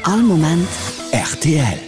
All Moment rtl.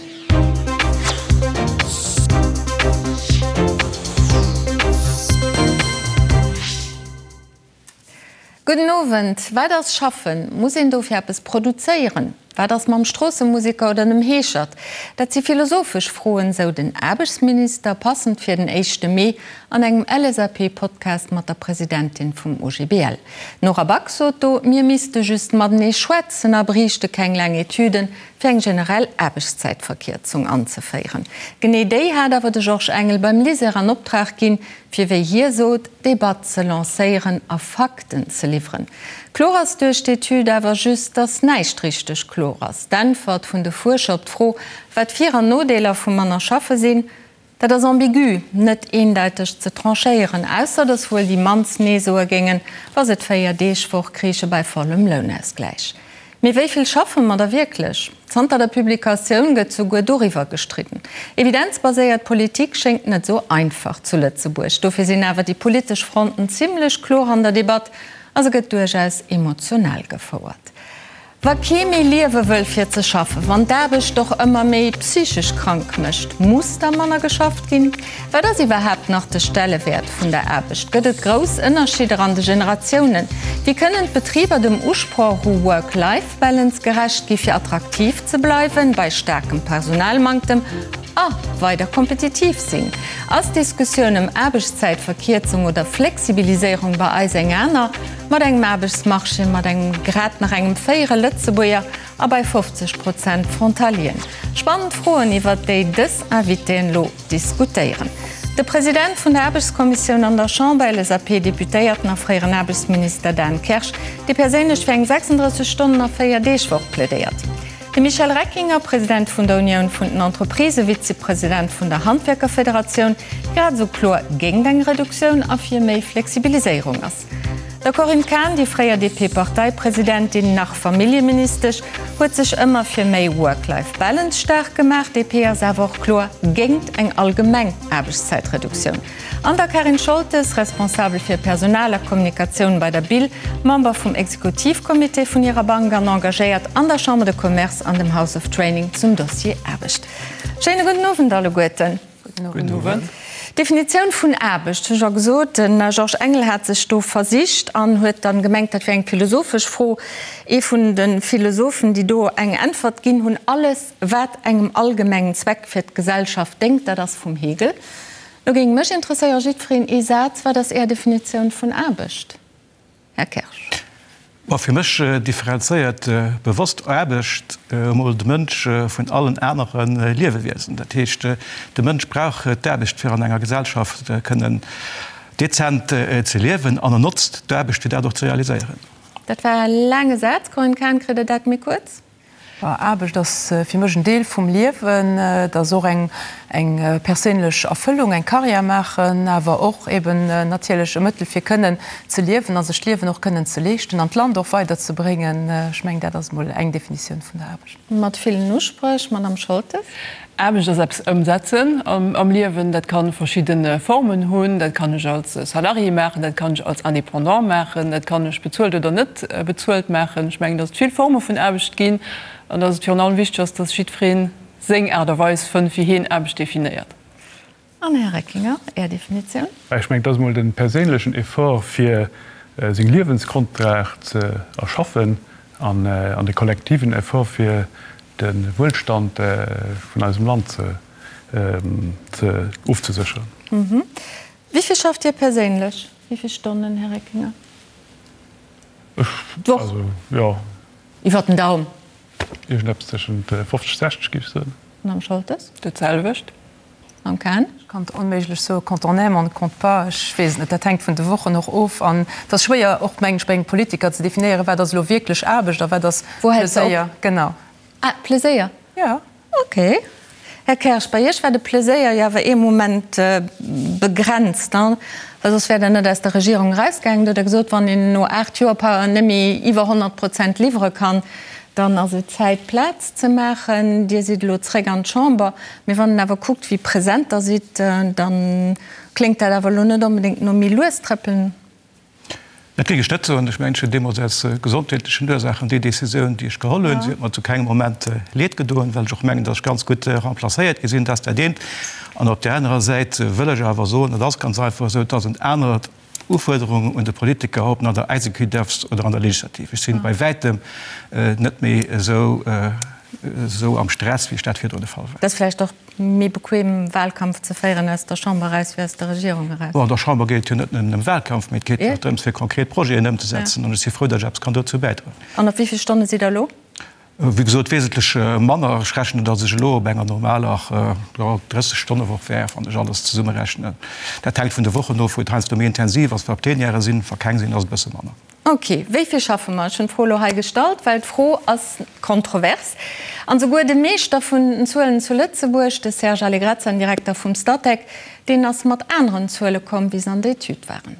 Gudden Owend. Wat ass Schaffen? Muss een dofir eppes produzéieren? Wat ass mam Stroossemuseker oder dem Heeschert? Dat si philosophesch Froen, sou den Aarbechtsminister, passend fir den éischte Mee, an engem LSAP-Podcast mat der Presidentin vum OGBL. D'Nora Back sot do, mir misste just matenee schwätzen a bréichte keng laang Etüden, fir eng generell Aarbechtszäitverkierzung anzeféieren. Genee déi hat awer de Georges Engel beim LISER an Optrag ginn, fir wéi hie sot, d'Debatt ze lancéieren a Fakten ze liwweren. Kloer ass duerch d'Etüd awer just, datt näischt richteg kloer ass. D'Äntwert vun de Fuerscher op d'Fro, wat Vir an Nodeeler vu manner schaffe sinn, dat ass ambigu, net eendeiteg ze tranchéieren, ausser datt wuel déi mannst Nee soe géingen, wa se d'Véier-Deeg-Woch kriiche bei vollem Lounausgläich. Mee wéi vill schaffe mer da wierklech? Zanter der Publikatioun gëtt souguer doriwwer gestridden. Evidenzbaséiert Politik schéngt net esou einfach zu Lëtzebuerg. Dofir sinn awer déi politesch Fronten zimmlech kloer an der Debatt a se gëtt duerchaus emotional gefouert. Wa kee méi liewe wëll fir ze schaffen, wann d'Aarbecht och ëmmer méi psychesch krank mécht, muss da manner geschafft ginn? Wat ass iwwerhaapt nach de Stellewäert vun der Aarbecht? Gëtt et grouss Ënnerscheeder an de Generatiounen? Wéi kënnen d'Betriber dem Usproch u Work-Life-Balance gerecht gi fir attraktiv ze bleiwen bei staarkem Personalmanktem a weider kompetitiv sinn? Ass d'Diskussioun ëm Aarbechtszäitverkierzung oder Flexibiliséierung bei eis eng aner? Mat engem Aarbechtsmarché mat engem grad nach engem féiere Lëtzebuerger a bei 50 Prozent Frontalieren. Spannend Froen, iwwert déi dës Invitéen elo diskutéieren. De President vun der Aarbechtskommissioun an der Chamber, LSAP-Deputéierten a fréieren Aarbechtsminister Dan Kersch, dee perséinlech fir eng 36 Stonnen a 4 Deeg Woch plädéiert. De Michel Reckinger, President vun der Unioun vun den Entreprisen, Vizepresident vun der Handwierkerfederatioun, grad esou kloer géingt eng Reduktioun a fir méi Flexibiliséierung ass. Der Corinne Cahen, déi fréier DP-Parteipresidentin, nach Familljeministesch, huet sech ëmmer fir méi Work-Life-Balance staark gemaach. DP ass awer och kloer géingt eng allgemeng Aarbechtszäitreduktioun. An der Karin Scholtes, Responsabel fir Personal a Kommunikatioun bei der BIL, Member vum Exekutivcomité vun hirer Bank an engagéiert an der Chambre de Commerce an dem House of Training zum Dossier Aarbecht. Schéine gudden Owend alleguerten. Gudden Owend. D'Definitioun vun Aarbecht, hu scho gesot, de Georges Engel hat sech do versicht an huet dann gemengt, dat wär eng philosophesch Fro. Ee vun de Philosophen, déi do eng Äntwert ginn hunn, Alles, wat engem allgemengen Zweck fir d'Gesellschaft déngt, dat ass vum Hegel. Lo géing mech interesséieren, jiddwereen ee Saz, Wat ass Är Definitioun vun Aarbecht? Här Kersch. Ma fir mech differenzéiert bewosst Aarbecht emol de Mënsch vun allen anere Liewewiesen. Dat heescht, de Mënsch brauch d'Aarbecht, fir an enger Gesellschaft kënnen dezent ze liewen, an en notzt d'Aarbecht, fir dat och ze realiséieren. Dat war e laange Saz, Corinne Cahen. Kritt Der dat méi kuerz? Aarbecht ass fir mech en Deel vum Liewen. Et ass och eng perséinlech Erfëllung, eng Karriär maachen, awer och eben natierlech e Mëttel fir kënnen ze liewen a sech d'Liewen och kënnen ze leeschten an d'Land och weiderzebréngen. Ech mengen, dat ass emol eng Definitioun vun der Aarbecht. Mat villen Uspréch, Madame Scholtes. Aarbecht ass eppes ëmsetzen am Liewen. Dat ka verschidde Formen hunn. Dat kann ech als Salarié maachen, dat kann ech als Indépendant maachen, dat kann ech bezuelt oder net bezuelt maachen. Ech mengen, datt et vill Forme vun Aarbecht ginn an datt et virun allem wichteg ass, datt jiddweree seng Aart a Weis fënnt, wéi hien Aarbecht definéiert. An Här Reckinger, Är Definitioun? Ech mengen, et ass emol de perséinlechen Effort, fir seng Liewensgrondlag ze erschaffen, an de kollektiven Effort, fir de Wuelstand vun eisem Land ze ofzesécheren. Wéi vill schafft Dir perséinlech? Wéi vill Stonnen, Här Reckinger? D'Woch? Also, jo. Iwwer den Daum? Iergendeppes tëschent 50, 60, géif ech soen. Madame Scholtes? Dat selwecht. Mam Ken? Ech kann et onméiglech soen, quand on aime, on ne compte pas. Ech weess et net, dat hänkt vun de Wochen och of. An et ass schwéier och, mengen ech, bei engem Politiker ze definéieren, wat ass elo wierklech Aarbecht a wat ass Pleséier. Genau. Ah, Pleséier? Jo. Okay. Här Kersch, bei Iech war de Pleséier jo awer ee Moment begrenzt, ne? Well soss wäert Der net aus der Regierung erausgaangen. Do hutt Der gesot, wann een no 8 Joer par net méi iwwer 100 Prozent liwwere kann, dann ass et Zäit, Plaz ze maachen. Dir sidd elo zréck an d'Chamber. Mee wann een awer kuckt, wéi present Der sidd, da kléngt dat awer elo net onbedéngt no méi lues trëppelen. Dat géing ech net soen. Ech mengen, ech hunn deemools aus gesondheetlechen Ursaachen déi Decisioun, déi ech geholl hunn, si huet mer zu kengem Moment Leed gedoen, well ech och mengen, datt ech ganz gutt remplacéiert gi sinn. Dat ass dat eent. An op där anerer Säit wëll ech awer soen, et ass ganz einfach esou, et ass en anert Ufuerderung un de Politiker, ob en an der Executive ass oder an der Legislative. Ech sinn bei wäitem net méi esou esou am Stress, wéi ech dat virdrun de Fall war. Et ass vläicht och méi bequem, Wahlkampf ze féieren aus der Chamber eraus wéi aus der Regierung eraus. Bon, an der Chamber geet et jo net nëmmen ëm Wahlkampf, mee et geet jo och drëms, fir konkret Projeten ëmzesetzen. An ech si frou, datt ech eppes kann dozou bäidroen. An op wéi vill Stonne sidd Der elo? Wéi gesot, wesentlech manner. Ech rechnen, datt ech elo op enger normaler, jo, 30 Stonnewoch wär, wann ech alles zesummerechnen. Dat hänkt vun de Wochen of, wou et heiansdo méi intensiv ass, wa Plenièren sinn. Wa keng sinn, ass et e bësse manner. Ok, wéi vill schaffe mer? Ech hunn d'Fro elo hei gestallt, well d'Fro ass kontrovers. An souguer de Meeschter vun den Zuelen zu Lëtzebuerg, de Serge Allegrezza, den Direkter vum Statec, deen ass mat aneren Zuele komm, wéi se an der Etüd waren.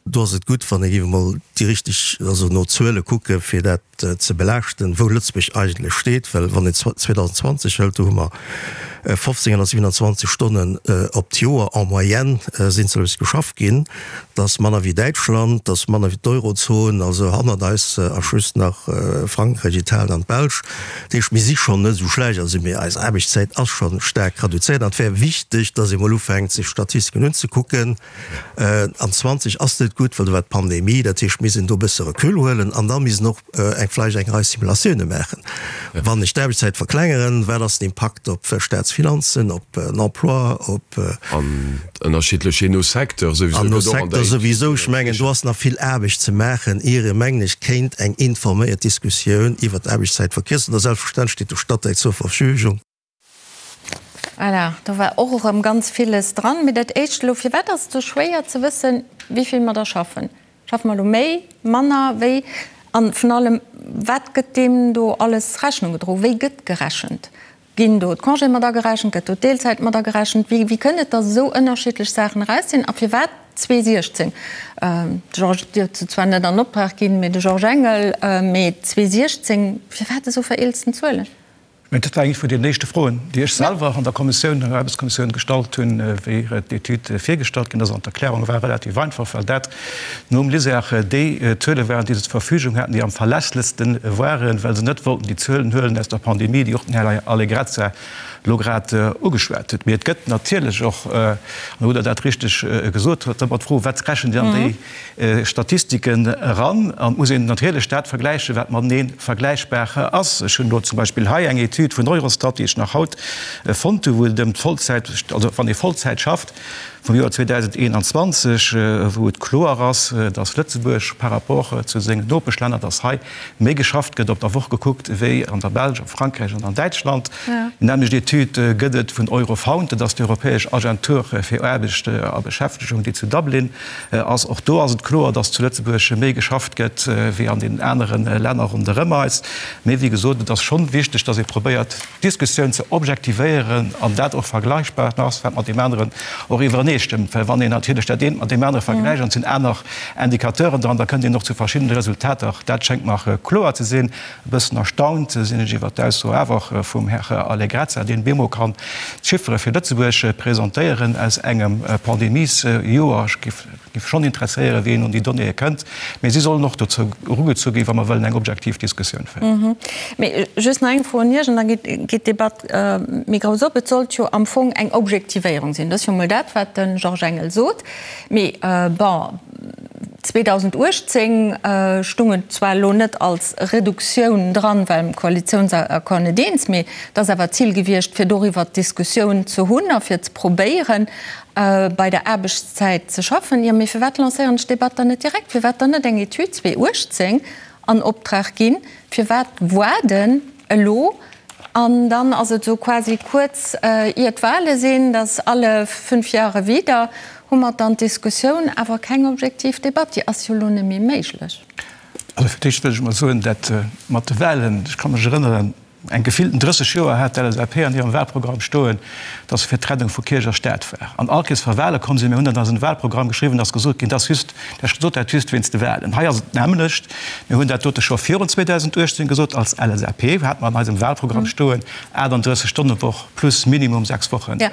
Do ass et gutt, wann ee géif emol déi richteg, also no Zuele kucken, fir dat ze belaaschten, wou Lëtzebuerg eigentlech steet. Well wann een 2020 hëlt, do hu mer 1527 Stonnen op d'Joer en moyenne sinn zu Lëtzebuerg geschafft ginn. Dat ass manner wéi Däitschland, dat ass manner wéi d'Eurozon, also hannert eis ass just nach Frankräich, Italien an d'Belsch. Dat heescht, mir si schonn net esou schlecht, also mee eis Aarbechtszäit ass scho staark reduzéiert. An et wär wichteg, datt ee mol ufänkt, sech Statistiken unzekucken. An 20 ass net gutt, well do war d'Pandemie. Dat heescht, mir missten do e bësse Recul huelen an da missten och eng vläicht eng Rei Simulatioune maachen. Wann ech d'Aarbechtszäit verklengeren, wat ass den Impakt op d'Staatsfinanzen, op den Emploi, op. An ënnerschiddlech jee no Secteur souwisou. An no Secteur souwisou. Ech mengen, do ass nach vill Aarbecht ze maachen, ier ee, mengen ech, kéint eng informéiert Diskussioun iwwert d'Aarbechtszäitverkierzung, da selbstverständlech steet de Statec zur Verfügung. Voilà, do war och erëm ganz villes dran. Mee dat Éischt elo, Firwat ass et esou schwéier ze wëssen, wéi vill mer da schaffen? Schaffe mer elo méi, manner, wéi? A vun allem, wat gëtt deem do alles Rechnung gedroen? Wéi gëtt gerechent? Ginn do d'Congéë mat agerechent? Gëtt do d'Deelzäit mat agerechent? Wéi, wéi kënnt et, datt esou ënnerschiddlech Saachen eraus sinn? A firwat 2016? De Georges, Dir hutt se zwar net an Optrag ginn, mee de Georges Engel, mee 2016, firwat esou vereelzten Zuelen? Mä dat war eng vun den éischte Froen, déi ech selwer an der Kommissioun, an der Aarbechtskommissioun gestallt hunn, wéi d'Etüd virgestallt ginn ass. An d'Erklärung war relativ einfach, well dat nom LISER déi Zuele waren, déi se zur Verfügung haten, déi am verlässlechste waren, well se net wollten déi Zuelen huelen aus der Pandemie, déi och den Här Allegrezza elo grad ugeschwat huet. Mee et gëtt natierlech och, an do hutt Der dat richteg gesot, ëmmer d'Fro, Wat rechent Dir an déi Statistiken eran an et muss een natierlech dat vergläichen, wat matenee vergläichbar ass. Ech hunn elo zum Beispill hei eng Etüd vun Eurostat, déi ech nach haut fonnt hu, wou et ëm d'Vollzäit, also wann ee Vollzäit schafft, vum Joer 2021, wou et kloer ass, dass Lëtzebuerg par rapport zu sengen Nopeschlänner, dass hei méi geschafft gëtt op der Woch gekuckt wéi an der Belsch, a Frankräich an an Däitschland. Déi nämmlecht Etüd gëtt et vun Eurofound, dat ass déi europäesch Agentur fir Aarbecht a Beschäftegung, déi zu Dublin ass. Och do ass et kloer, dass zu Lëtzebuerg méi geschafft gëtt wéi an den anere Länner ronderëm eis. Mee wéi gesot, et ass schonn wichteg, dass ee probéiert, d'Diskussioun ze objektivéieren an dat och vergleichbar ass, wat mat deem aneren och iwwereneestëmmt. Well wann een natierlech dat eent mat deem anere vergläicht an et sinn aner Indicateuren dran, da kënnt een och zu verschiddene Resultater. Dat schéngt mer kloer ze sinn. E bëssen erstaunt sinn ech iwwert d'Ausso awer vum Här Allegrezza, deen bemol kann d'Chiffere fir Lëtzebuerg presentéieren aus engem Pandemiesjoer. Ech géif géif schonn interesséieren, wéi een un déi Donnéeë kënnt. Mee si sollen och dozou erugezu ginn, wa mer wëllen eng objektiv Diskussioun féieren. Mee just nach eng Fro un Iech, an da geet d'Debatt méi grouss op. Et sollt jo am Fong eng Objektivéierung sinn. Dat ass jo emol dat, wat de Georges Engel sot. Mee bon, 2018 stung et zwar elo net als Reduktioun dran, well am Koalitiounsaccord net eens, mee et ass awer d'Zil gewiescht, fir doriwwer d'Diskussioun ze hunn a fir ze probéieren, bei der Aarbechtszäit ze schaffen. Jo, mee firwat lancéieren ech d'Debatt dann net direkt? Firwat dann net eng Etüd 2018 an Optrag ginn? Firwat waarden elo? An dann ass et esou quasi kuerz ier d'Wahle sinn, dass alle fünf Jahre wieder hu mer dann d'Diskussioun, awer keng objektiv Debatt. Déi ass jo elo net méi méiglech. Also fir d'éischt wëll ech emol soen, dat mat de Wahlen, ech ka mech erënneren. Eng gefillten 30 Joer hat d'LSAP an hirem Wahlprogramm stoen, datt se fir d'Trennung vu Kierch a Staat war. An all Kees wa Wahle komm sinn, mir hunn dat an eisen Wahlprogramm geschriwwen, ass gesot ginn, dat ass just, dat sot dat just wéinst de Wahlen. Hei ass et d'nämmlecht. Mir hunn dat dote scho virun 2018 gesot. Als LSAP hate mer an eisem Wahlprogramm stoen, 38 Stonne Woch plus minimum 6 Wochen Congé.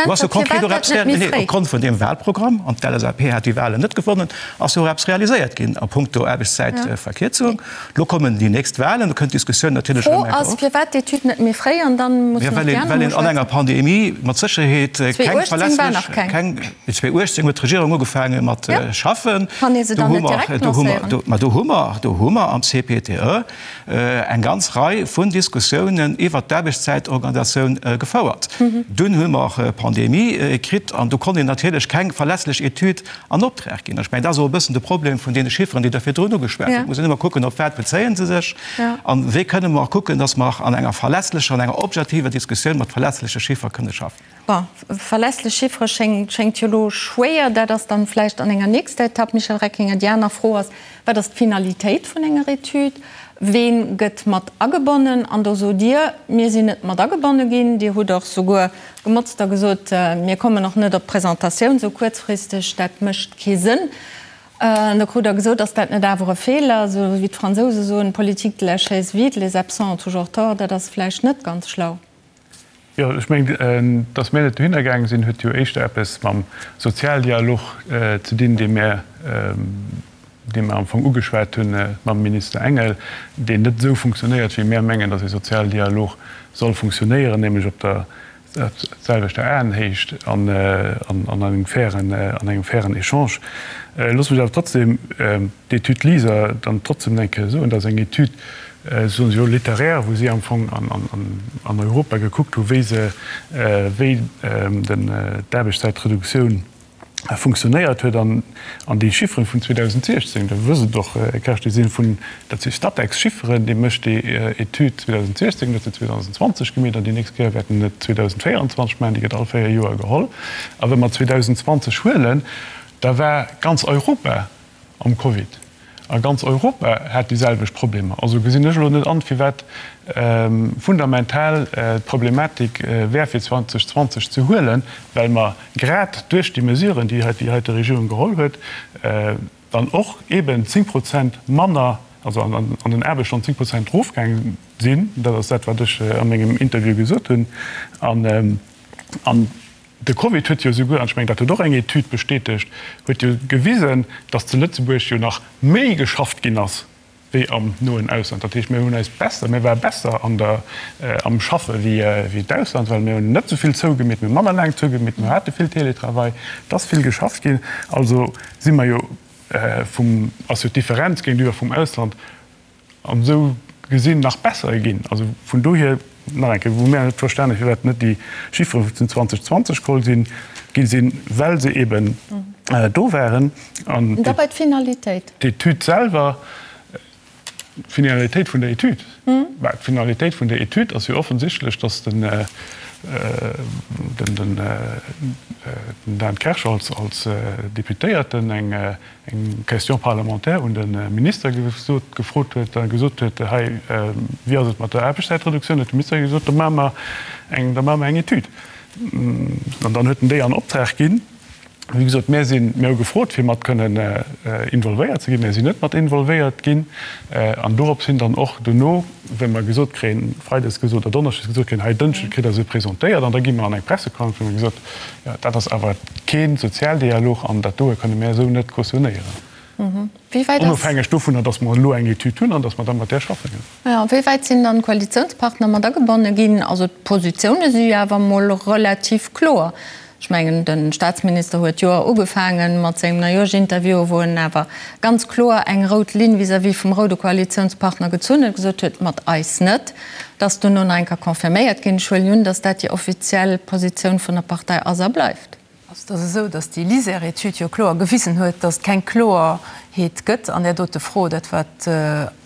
Do ass jo konkret och eppes, nee, opgrond vun deem Wahlprogramm, an d'LSAP hat déi Wahlen net gewonnen, ass jo och eppes realiséiert ginn a punkto Aarbechtszäitverkierzung. Lo kommen déi nächst Wahlen, do kënnt d'Diskussioun natierlech erëm eng Kéier op. D'Fro ass, firwat d'Etüd net méi fréi an dann mussen och déi aner Well een an enger Pandemie mat Sécherheet keng verlässlech, keng, 2018 huet d'Regierung ugefaange mat schaffen. Kann ee se dann net direkt lancéieren? Mä do hu mer, do hu mer am CPTE eng ganz Rei vun Diskussiounen iwwert d'Aarbechtszäitorganisatioun gefouert. Dunn hu mer Pandemie kritt an do konnt een natierlech keng verlässlech Etüd an Optrag ginn. Ech mengen, dat ass och e bëssen de Problem vun deene Chifferen, déi Der virdrun ugeschwat hutt. Et muss een ëmmer kucken, op wat bezéie se sech a wéi kënne mer kucken, dass mer an enger verlässlecher, an enger objektiver Diskussioun mat verlässleche Chiffer kënne schaffen. Bon, verlässlech Chiffere schéngt jo elo schwéier. Dat ass dann vläicht an enger nächster Etapp, Michel Reckinger. Déi aner Fro ass, Wat ass d'Finalitéit vun enger Etüd? Ween gëtt mat agebonnen? An do sot Dir, Mir sinn net mat agebonne ginn. Dir hutt och souguer gemotzt a gesot, Mir kommen och net op d'Presentatioun esou kuerzfristeg, dat mécht kee Sënn. An da krut Der gesot, Ass dat net awer e Feeler? Esou wéi d'Fransouse soen, Politique de la chaise vide, les absents ont toujours tort. Dat ass vläicht net ganz schlau. Jo, ech mengen, datt mir net dohinner gaange sinn, huet jo éischter eppes mam Sozialdialog ze dinn, dee mir, dee mir am Fong ugeschwat hu mam Minister Engel, deen net esou funktionéiert, wéi mir mengen, datt ee Sozialdialog soll funktionéieren, nämlech op der selwechter Aenhéicht an an engem fairen, an engem fairen Echange. Looss mech awer trotzdem d'Etüd LISER dann trotzdem eng Kéier soen. Dat ass eng Etüd, soen se jo, littéraire, wou si am Fong an Europa gekuckt hu wéi se, wéi d'Aarbechtszäitreduktioun funktionéiert huet. An déi Chifferen vun 2016, Der wësst et och, Här Kersch, déi si vun, dat si Statec-Chifferen, dee mécht déi Etüd 2016, huet se 2020 gemeet an déi nächst Kéier wäert en et 2024 maachen. Déi gëtt all véier Joer geholl. A wa mer 2020 huelen, da war ganz Europa am Covid. A ganz Europa hat déi selwecht Problemer. Also gesinn ech elo net an, firwat fundamental d'Problematik wär fir 2020 ze huelen, well mer grad duerch déi Mesuren, déi déi heite Regierung geholl huet, dann och eeben 10 Prozent manner, also an den Aarbechtsstonnen 10 Prozent erofgaange sinn. Dat ass dat, wat ech a mengem Interview gesot hunn. An De Covid huet jo esouguer, an ech mengen, dat huet och eng Etüd bestätegt, huet jo gewisen, datt zu Lëtzebuerg jo nach méi geschafft ginn ass wéi am noen Ausland. Dat heescht, mir hunn eis besser, mir ware besser an der, am Schaffe wéi d'Ausland, well mir hunn net esou vill zougemeet, mir hu manner laang zougemeet, mir hate vill Télétravail, et ass vill geschafft ginn. Also si mer jo vum, ass jo d'Differenz géintiwwer vum Ausland An esou gesinn nach besser ginn. Also vun dohier, nach eng Kéier, wou mir net verstanen, firwat net déi Chiffere vun 2020 geholl sinn, gi sinn, well se eben do waren. An da bei d'Finalitéit. D'Etüd selwer, d'Finalitéit vun der Etüd, bah, d'Finalitéit vun der Etüd ass jo offensichtlech, dass den, den Dan Kersch als Deputéierten eng eng Question parlementaire un de Minister gesot, gefrot huet a gesot huet, hei, wéi ass et mat der Aarbechtszäitreduktioun, huet de Minister gesot, da maache mer eng, da maache mer eng Etüd. An dann huet en déi an Optrag ginn. Wéi gesot, mir sinn, mir hu gefrot, fir mat kënnen involvéiert ze ginn. Mir sinn net mat involvéiert ginn. An dorops hin dann och dono, wéi mer gesot kréien, freides gesot oder donneschdes gesot kréien, hei Dënschdes kritt Der se presentéiert an da gi mer an eng Pressekonferenz, wou mer gesot, jo, dat ass awer kee Sozialdialog an dat doe kënne mär esou net cautionnéieren. Onofhängeg dovunner, datt mer elo eng Etüd hunn an datt mer da mat där schaffen. Jo, wéi wäit sinn dann d'Koalitiounspartner mat agebonne ginn? Also d'Positioune si jo awer emol relativ kloer. Ech mengen, de Staatsminister huet d'Joer ugefaange mat sengem Neijoerschinterview, wou en awer ganz kloer eng rout Linn vis-à-vis vum roude Koalitiounspartner gezunn huet, gesot huet, mat eis net. Dat ass duerno nach eng Kéier confirméiert ginn. Ech huelen un, datt dat déi offiziell Positioun vun der Partei ass a bleift. Et ass esou, datt déi LISER-Etüd jo kloer gewisen huet, datt et keng Kloerheet gëtt an där dote Fro. Dat, wat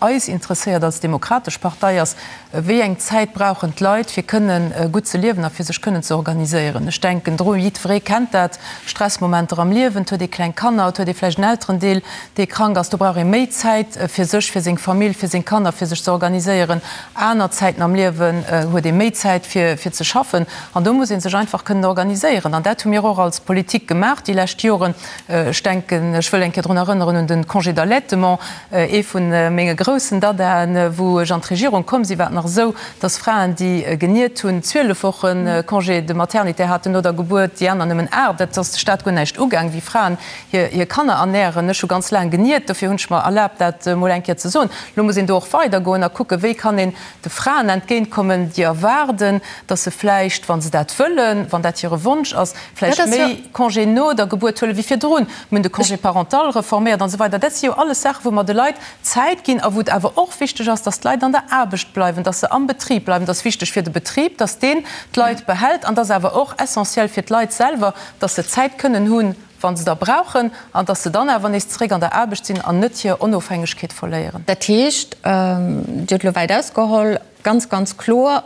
eis interesséiert als Demokratesch Partei, ass, Wéi eng Zäit brauchen d'Leit, fir kënnen gutt ze liewen a fir sech kënnen ze organiséieren? Ech denken dru, jiddweree kennt dat, Stressmomenter am Liewen, et huet ee kleng Kanner, et huet ee vläicht en Elterendeel, dee krank ass, do brauch ee méi Zäit fir sech, fir seng Famill, fir seng Kanner, fir sech ze organiséieren. Aner Zäiten am Liewen huet ee méi Zäit fir ze schaffen an do muss ee sech einfach kënnen organiséieren. An dat hu mir och als Politik gemaach déi lescht Joren. Ech denken, ech wëll eng Kéier drun erënneren un de Congé d'allaitement, Ee vu menge groussen Dadaen, wou ech an d'Regierung komm sinn, war et nach esou, dass Fraen, déi geniert hunn, 12 Woche Congé de maternité haten no der Gebuert, déi aner nëmmen 8. Dat ass de Staat guer näischt ugaang, wéi Fraen hir Kanner ernären. Ech hu ganz laang geniert, dofir hunn ech mer erlaabt, dat emol eng Kéier ze soen. Elo muss een do och weidergoen a kucken, wéi kann een de Fraen entgéintkommen, déi erwaarden, dass se vläicht, wa se dat wëllen, wann dat hire Wonsch ass, vläicht méi Congé no der Gebuert huelen wéi virdrun. Mir hunn de Congé parental reforméiert an esou weider. Dat si jo alles Saachen, wou mer de Leit Zäit ginn a wou et awer och wichteg ass, dass d'Leit an der Aarbecht bleiwen, dass se am Betrib bleiwen. Et ass wichteg fir de Betrib, dass deen d'Leit behält an et ass awer och essentiel fir d'Leit selwer, dass se Zäit kënnen hunn, wa se der brauchen, an dass se dann awer nees zeréck an der Aarbecht sinn an net hir Onofhängegkeet verléieren. Dat heescht, Dir hutt elo wäit ausgeholl, ganz, ganz kloer,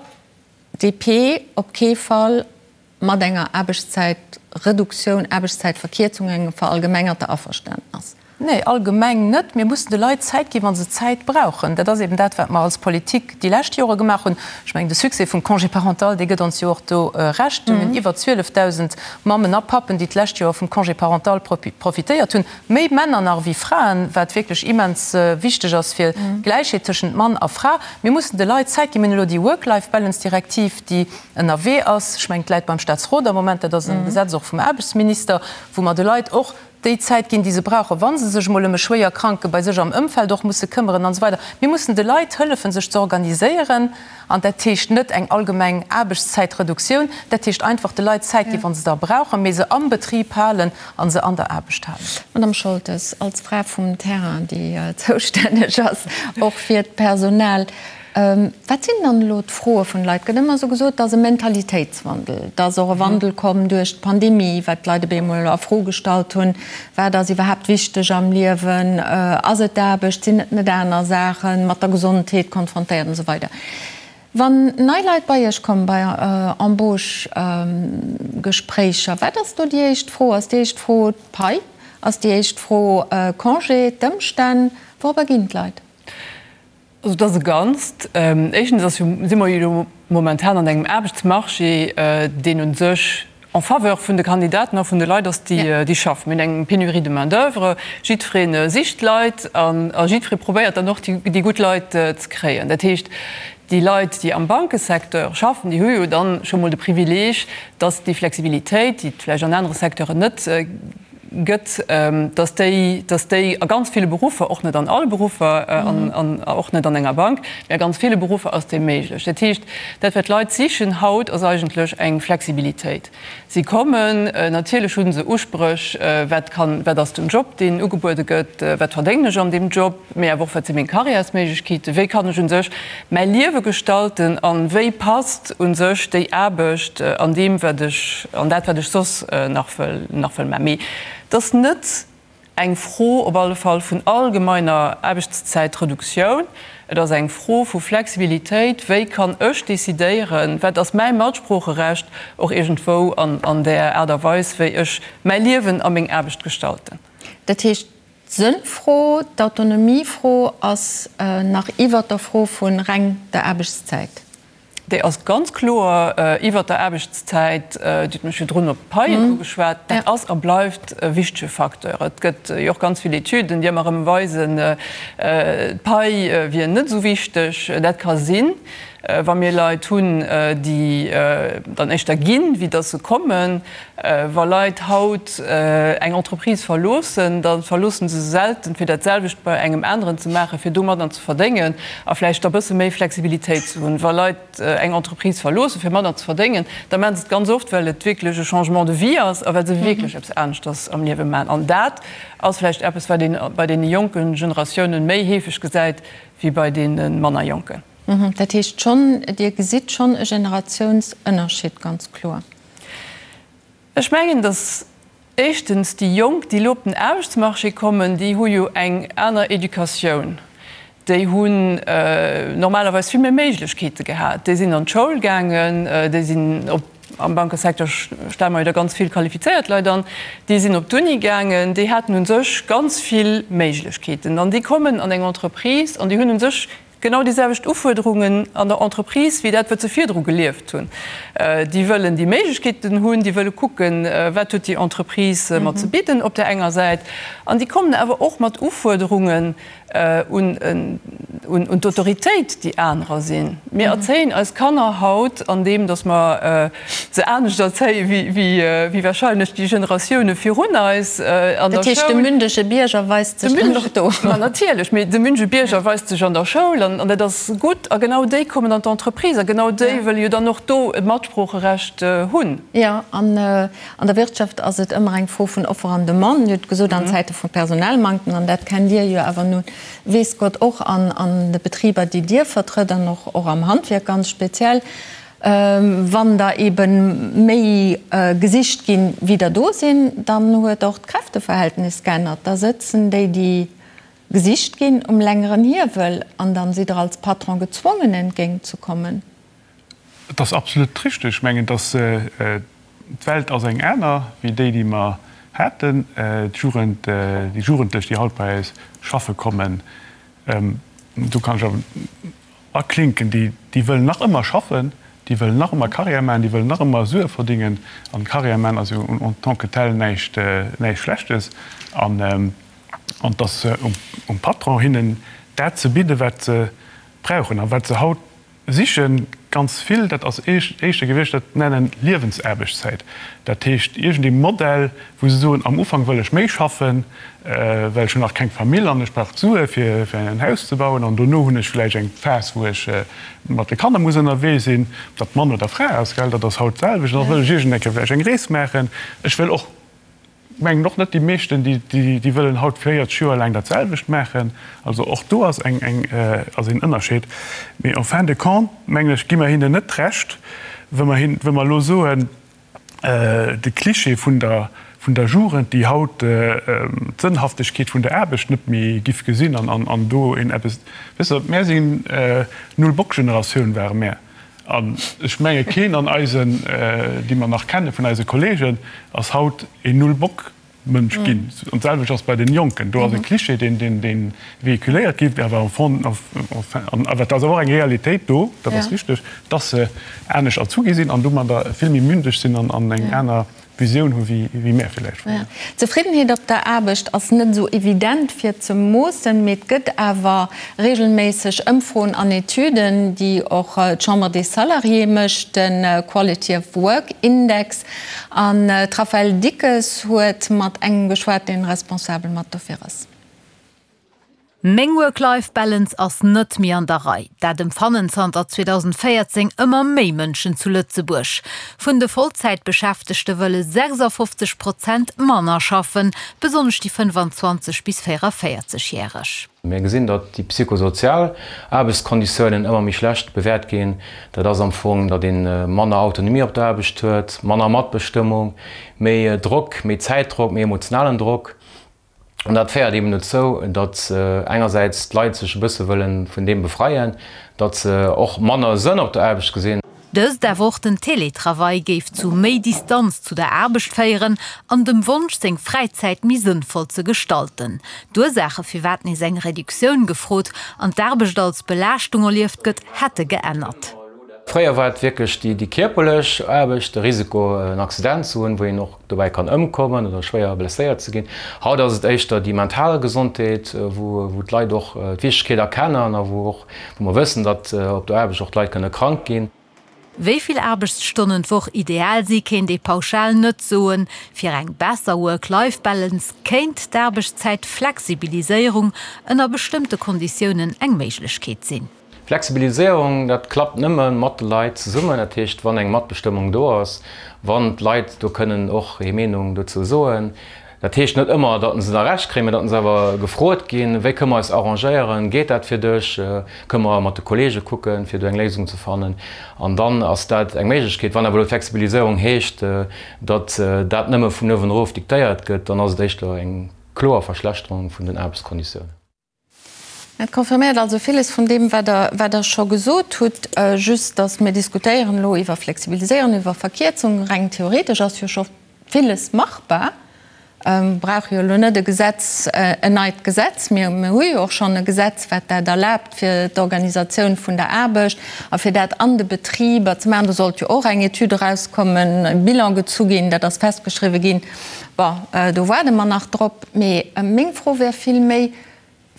DP op kee Fall mat enger Aarbechtszäitreduktioun, Aarbechtszäitverkierzung, engem verallgemengerter Averständnis. Nee, allgemeng net. Mir mussen de Leit Zäit ginn, wa se Zäit brauchen. Dat ass eben dat, wat mer als Politik déi lescht Jore gemaach hunn. Ech mengen, de Succès vum Congé parental, dee gëtt ons jo och do Recht. Mir hunn iwwer 12.000 Mammen a Pappen, déi d'lescht Joer vum Congé parental profitéiert hunn. Méi Männer nach ewéi Fraen, wat wierklech immens wichteg ass fir d'Gläichheet tëschent Mann a Fra. Mir mussen de Leit Zäit ginn. Mir hunn elo déi Work-Life-Balance-Direktiv, déi ënnerwee ass. Ech mengen, et läit beim Staatsrot am Moment, dat ass e Gesetz och vum Aarbechtsminister, wou mer de Leit och déi Zäit ginn, déi se brauchen, wa se sech emol ëm e Schwéierkranke bei sech am Ëmfeld och musse këmmeren an esou weider. Mir mussen de Leit hëllefen, sech ze organiséieren. An dat heescht net eng allgemeng Aarbechtszäitreduktioun, dat heescht einfach de Leit Zäit ginn, wa se der brauchen, mee se am Betrib halen a se an der Aarbecht halen. Madame Scholtes, als Fra vum Terrain, déi zoustänneg ass och fir d'Personal, Wat sinn dann elo d'Froe vun de Leit? Et gëtt ëmmer esou gesot, et ass e Mentalitéitswandel, et ass och e Wandel komm duerch d'Pandemie, wat d'Leit op eemol a Fro gestallt hunn, wat ass iwwerhaapt wichteg am Liewen, ass et d'Aarbecht, sinn et net aner Saachen, mat der Gesondheet konfrontéiert an esou weider. Wann nei Leit bei Iech kommen, bei Embauche-Gespréicher, wat ass do déi éischt Fro? Ass déi éischt Fro d'Pai? Ass déi éischt Fro Congé, d'Ëmstänn? Wourobber ginn d'Leit? Also et ass e Ganzt. Éischtens ass jo, si mer jo elo momentan an engem Aarbechtsmarché, deen u sech en faveur vun de Kandidaten a vun de Leit ass, déi déi schaffen. Mir hunn eng Pénurie de main d'oeuvre, jiddweree sicht Leit an a jiddweree probéiert dann och déi gutt Leit ze kréien. Dat heescht, déi Leit, déi am Bankesecteur schaffen, déi hu jo dann scho mol de Privileeg, dass déi Flexibilitéit, déi et vläicht an anere Secteuren net gëtt, dass déi, dass déi a ganz ville Beruffer, och net an alle Beruffer an och net an enger Bank, mä a ganz ville Beruffer ass déi méiglech. Dat heescht, dat wat d'Leit sichen haut, ass eigentlech eng Flexibilitéit. Si kommen, natierlech hu se Uspréch, wat kann, wat ass den Job, deen ugebuede gëtt, wat verdéngen ech an deem Job, mee awer och, wat si meng Karriärsméiglechkeeten, wéi kann ech u sech mäi Liewe gestalten a wéi passt u sech déi Aarbecht an deem, wat ech, an dat, wat ech soss nach wëll, nach wëll maachen. Mee et ass net eng Fro op alle Fall vun allgemeiner Aarbechtszäitreduktioun, et ass eng Fro vu Flexibilitéit, wéi kann ech decidéieren, wat ass mäi Matsproocherecht och iergendwou an där Aart a Weis, wéi ech mäi Liewen a meng Aarbecht gestalten. Dat heescht, D'Sënnfro, d'Autonomiefro ass nach iwwert der Fro vu reng der Aarbechtszäit. Déi ass ganz kloer iwwert der Aarbechtszäit. Dir hutt mech virdrun op d'Paien ugeschwat. Dat ass a bleift e wichtege Facteur. Et gëtt jo och ganz vill Etüden, déi ëmmer erëm weisen, d'Pai wier net esou wichteg. Dat ka sinn, wa mir Leit hunn, déi dann éischter ginn, wéi datt se kommen. Wa Leit haut eng Entreprise verloossen, da verloossen se se selten, fir dat selwecht bei engem aneren ze maachen, fir domadder ze verdéngen a vläicht da bësse méi Flexibilitéit ze hunn. Wa Leit eng Entreprise verloossen, fir manner ze verdéngen, da maachen se et ganz oft, well et wierklech e Changement de vie ass a well se wierklech eppes aneschters am Liewe maachen. An dat ass vläicht eppes, wat ee bei deene jonke Generatiounen méi heefeg gesäit wéi bei deene manner jonken. Dat heescht schonn, Dir gesitt schonn e Generatiounsënnerscheed ganz kloer? Ech mengen, datt. Éischtens, déi Jonk, déi elo op den Aarbechtsmarché kommen, déi hu jo eng aner Educatioun. Déi hunn normalerweis vill méi Méiglechkeete gehat. Déi sinn an d'Schoul gaangen, déi sinn op, am Bankesecteur stelle mer jo da ganz vill qualifizéiert Leit an, déi sinn op d'Uni gaangen, déi haten u sech ganz vill Méiglechkeeten. An déi kommen an eng Entreprise an déi hunn u sech Genau déi selwecht Ufuerderungen an der Entreprise wéi dat, wat se virdru gelieft hunn. Déi wëllen déi Méiglechkeeten hunn, déi wëlle kucken, wat huet déi Entreprise mer ze bidden op där enger Säit. An déi kommen awer och mat Ufuerderungen un d'Autoritéit, déi anerer sinn. Mir erzéien eis Kanner haut, andeem datt mer se anescht erzéie wéi wahrscheinlech déi Generatioune virun eis an der Schoul. Dat heescht, de mündege Bierger weist sech dann och do. Ma natierlech, mee de mündege Bierger weist sech an der Schoul an dat ass gutt. A genau déi kommen an d'Entreprise a genau déi wëlle jo dann och do e Matsproocherecht hunn. Jo, an an der Wirtschaft ass et ëmmer eng Fro vun Offer an Demande. Dir hutt gesot, an Zäite vu Personalmanktem, an dat kennt Dir jo awer nun weess Gott och an de Betriber, déi Dir vertrëtt an och am Handwierk ganz speziell, Wann der ebe méi gesicht ginn, wéi der do sinn, dann huet och d'Kräfteverhältnis geännert. Da sëtzen déi, déi gesicht ginn, um längeren Hiewel an dann sidd Der als Patron gezwongen, entgéint ze kommen. Et ass absolut richteg. Ech mengen, dass d'Welt ass eng aner wéi déi, déi mer haten. D'Jugend, déi Jugendlech, déi haut bei eis schaffe kommen, do kann ech awer Aklinken, déi, déi wëllen nach ëmmer schaffen, déi wëllen nach ëmmer Carrière maachen, déi wëllen nach ëmmer Sue verdingen. An Carrière maachen ass jo en tant que tel näischt, näischt Schlechtes. An, an et ass um Patron, hinnen dat ze bidden, wat se brauchen a wat se haut sichen. Ganz vill, dat ass éischter gewiescht, dat nennen Liewensaarbechtszäit. Dat heescht iergendee Modell, wou se soen, am Ufank wëll ech méi schaffen, well ech hunn nach keng Famill an ech brauch d'Sue fir en Haus ze bauen an dono hunn ech vläicht eng Phas, wou ech mat de Kanner muss ënnerwee sinn, ob dat Mann oder Fra ass, gell, dat ass haut d'selwecht. An da wëll ech iergend eng Kéier vläicht eng Rees maachen. Ech wëll och, mengen och net déi meeschten, déi wëllen haut 40 Joer laang dat selwecht maachen. Also och do ass eng, eng, ass een Ënnerscheed. Mee en fin de compte, mengen ech, gi mer hinnen net Recht, wa mer hin, wa mer elo soen, de Cliché vun der, vun der Jugend, déi haut d'Sënnhaftegkeet vun der Aarbecht net méi giff gesinn an, an, an do een eppes, weess de, mär sinn Null-Bock-Generatioun ware mär. An ech menge keen an eisen, déi mer nach kenne vun eise Kollegen, ass haut een Null-Bock-Mënsch ginn. An d'selwecht ass bei den Jonken. Do ass e Cliché, deen, deen, dee véhiculéiert gétt, awer am Fond, enfin, an awer et ass awer och eng Realitéit do, dat ass richteg, dass se anescht erzu gi sinn an domadder vill méi mündeg sinn an, an eng aner Visioun hu wéi mär villäicht fréier. D'Zefriddenheet op der Aarbecht ass net esou evident fir ze moossen, mee et gëtt awer regelméisseg Ëmfroen an Etüden, déi och d'Chambre des Salariés mécht, de Quality of Work Index. An d'Raphaëlle Dickes huet mat engem geschwat, deen responsabel mat dofir ass. Meng Work-Life-Balance ass net méi an der Rei. Dat emfannen zanter 2014 ëmmer méi Mënschen zu Lëtzebuerg. Vun de Vollzäitbeschäftegte wëlle 56 Prozent manner schaffen, besonnesch déi 25 bis 44 Järeg. Mir gesinn, datt déi psychosozial Aarbechtskonditiounen ëmmer méi schlecht bewäert ginn. Dat ass am Fong, datt ee manner Autonomie op der Aarbecht huet, manner Matbestëmmung, méi Drock, méi Zäitdrock, méi emotionalen Drock. An dat féiert eben dozou, datt engersäits d'Leit sech e bësse wëlle vun deem befreien, datt se och manner Sënn op der Aarbecht gesinn. Dëst, awer och den Teletravail, géif zu méi Distanz zu der Aarbecht féieren an dem Wonsch, seng Fräizäit méi sënnvoll ze gestalten. D'Ursaache firwat nees eng Reduktioun gefrot an d'Aarbecht als Belaaschtung erlieft gëtt, hätte geännert. Fréier war et wierklech déi kierperlech Aarbecht, de Risiko en Accident ze hunn, wou een och dobäi kann ëmkommen oder schwéier blesséiert ze ginn. Haut ass et éischter déi mental Gesondheet, wou d'Leit och d'Wichtegkeet erkennen a wou och, wou mer wëssen, datt op der Aarbecht och d'Leit kënne krank ginn. Wéi vill Aarbechtsstonnen d'Woch ideal si kéint ee pauschal net soen. Fir eng besser Work-Life-Balance kéint d'Aarbechtszäitflexibiliséierung ënner bestëmmte Konditiounen eng Méiglechkeet sinn. Flexibiliséierung, dat klappt nëmme mat de Leit zesummen. Dat heescht, wann eng Matbestëmmung do ass, wann d'Leit do kënnen och hir Meenung dozou soen. Dat heescht net ëmmer, datt se da Recht kréien, mä datt se awer gefrot ginn, wéi kënne mer eis arrangéieren, geet dat fir dech, kënne mer mat de Kollege kucken, fir do eng Léisung ze fannen. An dann ass dat eng Méiglechkeet. Wann awer elo d'Flexibiliséierung heescht, datt dat nëmme vun uewen erof diktéiert gëtt, dann ass et éischter eng kloer Verschlechterung vun den Aarbechtskonditiounen. Dat confirméiert also villes vun deem, wat Der, wat Der scho gesot hutt. Just, datt mir diskutéieren elo iwwer Flexibiliséieren, iwwer Verkierzung. Reng theoretesch ass jo scho villes machbar. Mir brauche jo elo net e Gesetz, en neit Gesetz. Mir, mir hu jo och schonn e Gesetz, wat dat erlaabt fir d'Organisatioun vun der Aarbecht a fir dat an de Betriber ze maachen. Do sollt jo och eng Etüd erauskommen, e Bilan gezu ginn, dat ass festgeschriwwen ginn. Bon, do waarde mer nach drop. Mee meng Fro wär vill méi,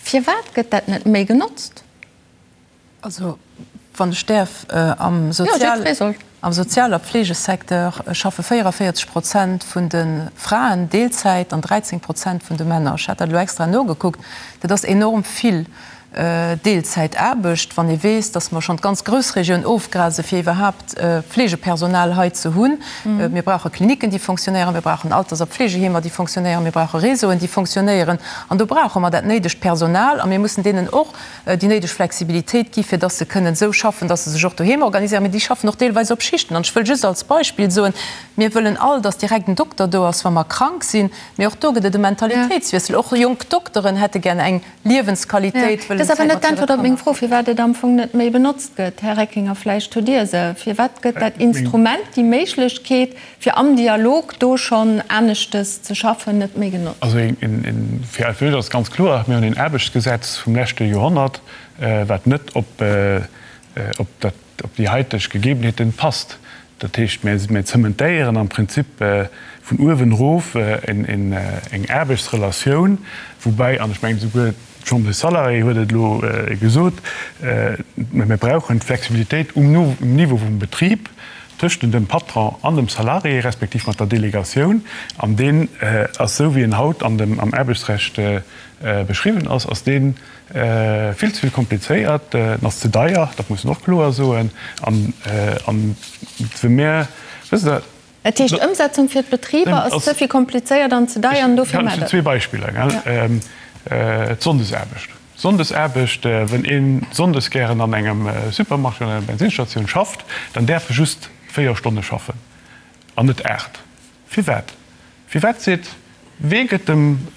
Firwat gëtt dat net méi genotzt? Also, wann ech däerf, am Sozial a Fleegesecteur schaffe 44 Prozent vun de Fraen Deelzäit an 13 Prozent vun de Männer. Ech hat dat elo extra nogekuckt. Dat ass enorm vill. Deelzäitaarbecht, wann ee weess, datt mer schonn d'ganz Groussregioun ofgrase fir iwwerhaapt Fleegepersonal hei ze hunn. Mir brauche Klinicken, déi fonctionnéieren, mir brauchen Alters a Pflegeheemer, déi fonctionnéieren, mir brauche Réseauen, déi fonctionnéieren. An do brauche mer dat néidegt Personal a mir mussen deenen och déi néideg Flexibilitéit gi fir datt se kënnen esou schaffen, datt se sech och doheem organiséieren. Mee déi schaffen och deelweis op Schichten. An ech wëll just als Beispill soen, Mir wëllen all, datt direkt en Dokter do ass, wa mer krank sinn. Mee och do gëtt et e Mentalitéitswiessel. Och jonk Dokteren hätte gär eng Liewensqualitéit wëllen Dat ass awer net d'Äntwert op meng Fro, firwat et am Fong net méi benotzt gëtt. Här Reckinger, vläicht hutt Dir se. Firwat gëtt dat Instrument, déi Méiglechkeet, fir am Dialog do schonn aneschtes ze schaffen, net méi genotzt? Also fir eis ass ganz kloer, Mir hunn een Aarbechtsgesetz vum leschte Joerhonnert, wat net op dat op déi haiteg Gegebenheeten passt. Dat heescht, mir zementéieren am Prinzip vun uewen erof eng Aarbechtsrelatioun, woubäi, an ech mengen esouguer d'Chambre des Salariés huet et elo gesot, mir brauchen d'Flexibilitéit um Niveau vum Betrib tëschent dem Patron an dem Salarié, respektiv mat der Delegatioun. An deen ass, esou wéi en haut am Aarbechtsrecht beschriwwen ass, ass deen Vill ze vill komplizéiert, en ass ze deier, dat muss een och kloer soen. An wa mir, wësst Der. Dat heescht, d'Ëmsetzung fir d'Betriber ass ze vill komplizéiert an ze deier an dofir maacht Der. Ech hunn zwee Beispiller, gell. D'Sonndesaarbecht. Sonndesaarbecht, Wenn ee sonndes gären an engem Supermarché oder enger Bensinsstatioun schafft, dann däerf e just 4 Stonne schaffen an net 8. Firwat? Firwat seet, wee gëtt dem.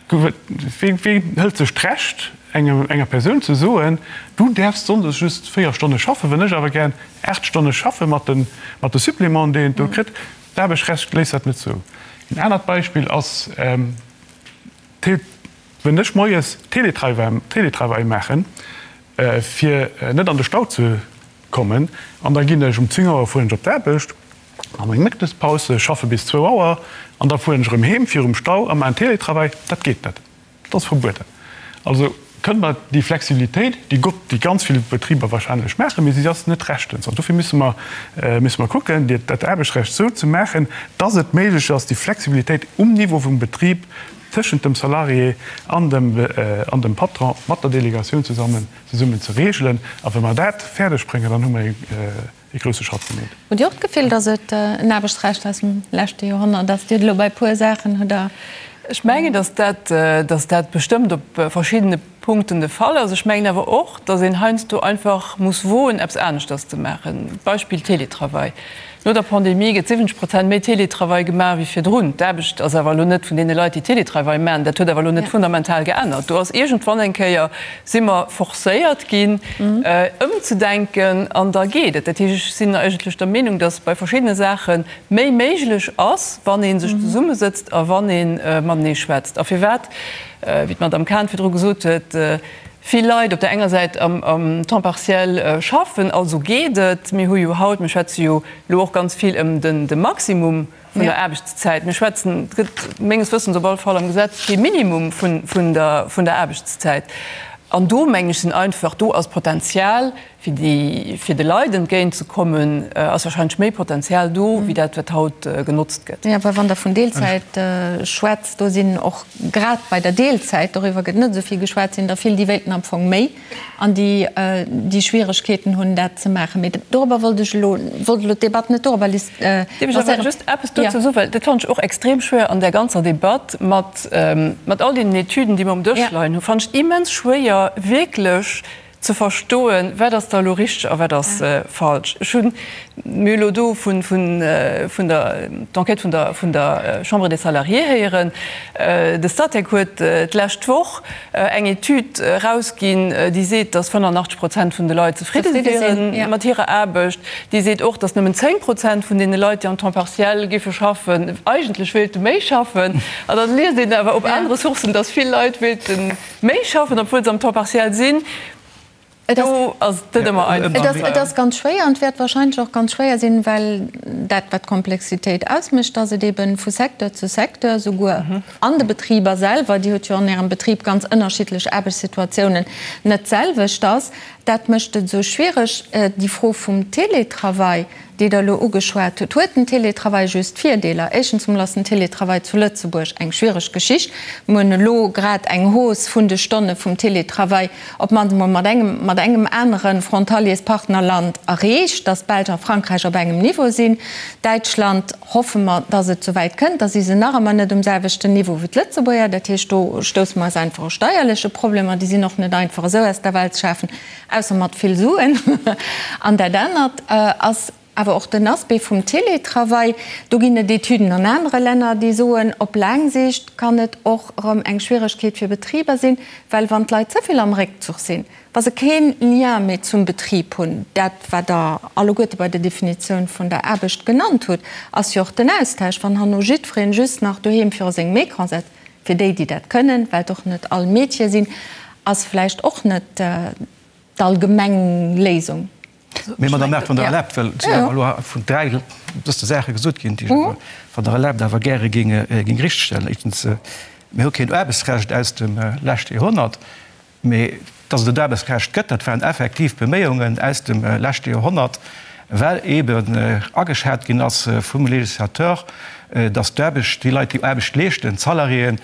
Wee hëlt sech d'Recht, enger Persoun ze soen, du däerfs sonndes just 4 Stonne schaffen, wenn ech awer gären 8 Stonne schaffe mat de Supplémenten, déi een do kritt? D'Aarbechtsrecht léisst dat net zou. En anert Beispill ass, Wenn ech moies Télétravail maachen, fir net an de Stau ze kommen, an da ginn ech um 10 Auer fueren ech op d'Aarbecht, An eng Mëttespaus, schaffe bis zwou Auer an da fueren ech erëm heem virum Stau a maachen Télétravail. Dat geet net, dat ass verbueden. Also kënne mer déi Flexibilitéit, déi gott, déi ganz vill Betriber wahrscheinlech maachen, mee si ass net rechtens. An dofir musse mer, musse mer kucken, dat Aarbechtsrecht esou ze maachen, dass et méiglech ass, déi Flexibilitéit um Niveau vum Betrib tëschent dem Salarié an dem, an dem Patron mat der Delegatioun zesammen, zesummen ze regelen. A wa mer dat fäerdeg bréngen, dann hu mer ee. ee grousse Schratt gemeet. Hutt Dir och d'Gefill, datt et en Aarbechtsrecht aus dem leschte Joerhonnert ass? Dir hutt elo bei e puer Saachen hutt Der. Ech mengen, datt dat, datt dat bestëmmt op verschiddene Punkten de Fall ass. Ech mengen awer och, datt een heiansdo einfach muss woen, eppes aneschters ze maachen. Beispill Télétravail. No der Pandemie gëtt 70 Prozent méi Télétravail gemaach wéi virdrun. D'Aarbecht ass awer elo net vun deene Leit, déi Télétravail maachen, dat huet awer elo net fundamental geännert. Do ass iergendwann eng Kéier, si mer forcéiert ginn, ëmzedenken an da geet et. Dat heescht, ech sinn eigentlech der Meenung, datt bei verschiddene Saache méi méiglech ass, wann ee sech zesummesëtzt a wann ee matenee schwätzt. A firwat, wéi d'Madame Cahen virdru gesot huet, vill Leit op der enger Säit am Temps partiel schaffen, also geet et. Mir hu jo haut, mir schwätze jo elo och ganz vill ëm de Maximum vun der Aarbechtszäit. Mir schwätzen, et gëtt menges Wëssens op alle Fall am Gesetz kee Minimum vun der Aarbechtszäit. An do, mengen ech, sinn einfach, do ass Potenzial. Fir déi, fir de Leit entgéint ze kommen, ass wahrscheinlech méi Potenzial do, wéi dat, wat haut genotzt gëtt. Jo, well wann Der vun Deelzäit schwätzt, do sinn och grad bei der Deelzäit, doriwwer gëtt net esou vill geschwat, sinn der vill, déi wéilten am Fong méi an déi, déi Schwieregkeeten hunn, dat ze maachen. Mee dorobber wollt ech elo, wollt elo d'Debatt net dorobber lancéieren. Dierf ech awer just eppes dozou soen, well dat fannen ech och extrem schwéier an där ganzer Debatt mat, mat all deenen Etüden, déi mer um Dësch leien hunn, fannen ech et immens schwéier, wierklech ze verstoen, wat ass da elo richteg a wat ass falsch. Ech hunn, mir hu elo do vun, vun, vun der, d'Enquête vun der, vun der Chambre des Salariés héieren. De Statec huet d'lescht Woch eng Etüd erausginn, déi seet, datt 85 Prozent vun de Leit zefridde wiere mat hirer Aarbecht. Déi seet och, datt nëmmen 10 Prozent vun deene Leit, déi am Temps partiel géife schaffen, eigentlech wéilte méi schaffen. An dann liest een awer op anere Sourcen, datt vill Leit wéilte Méi schaffen, obwuel se am Temps partiel sinn, do ass et net ëmmer einfach. Et ass ganz schwéier an et wäert wahrscheinlech och ganz schwéier sinn, well dat, wat d'Komplexitéit ausmécht, dass et eebe vu Secteur zu Secteur, souguer an de Betriber selwer, Dir hutt jo an Ärem Betrib ganz ënnerschiddlech Aarbechtssituatiounen, net d'selwecht ass. Dat mécht et esou schwiereg. Déi Fro vum Télétravail, déi Der elo ugeschwat hutt, huet den Télétravail just Virdeeler? Éischtens emol ass den Télétravail zu Lëtzebuerg eng schwiereg Geschicht. Mir hunn elo grad eng Hausse vun de Stonne vum Télétravail op d'mannst emol mat engem, mat engem anere Frontaliers-Partnerland erreecht, dass d'Belsch a Frankräich op engem Niveau sinn. Däitschland hoffe mer, dass et souwäit kënnt. Da si se nach ëmmer net um selwechten Niveau wéi d'Lëtzebuerger. Dat heescht, do stousse mer eis einfach u steierleche Problemer. Déi sinn och net einfach esou aus der Welt ze schafen. Ausser mat vill Suen. An dat anert ass awer och den Aspect vum Télétravail. Do ginn et Etüden an anere Länner, déi soen, op laang Siicht kann et och erëm eng Schwieregkeet fir Betriber sinn, well wann d'Leit ze vill am Réckzuch sinn, wa se kee Lien méi zum Betrib hunn, dat wat Der alleguerte bei der Definitioun vun der Aarbecht genannt hutt, ass jo och den Austausch, wann herno jiddweree just nach doheem viru sengem Ecran setzt, Fir déi, déi dat kënnen, well et och net all Métiere sinn, ass vläicht och net d'allgemeng Léisung. Mee, Madame Err, wann Der erlaabt, well et sinn awer elo vun 3 dëste Saache gesot ginn, déi ech awer, wann Der erlaabt, awer gäre géing richtegstellen. Éischtens, mir hu keen Aarbechtsrecht aus dem leschte Joerhonnert. Mee dass et en Aarbechtsrecht gëtt, dat waren effektiv Beméiungen aus dem leschte Joerhonnert, well eeben ageschat ginn ass vum Législateur, dass d'Aarbecht, déi Leit, déi Aarbecht leeschten, d'Salariéen,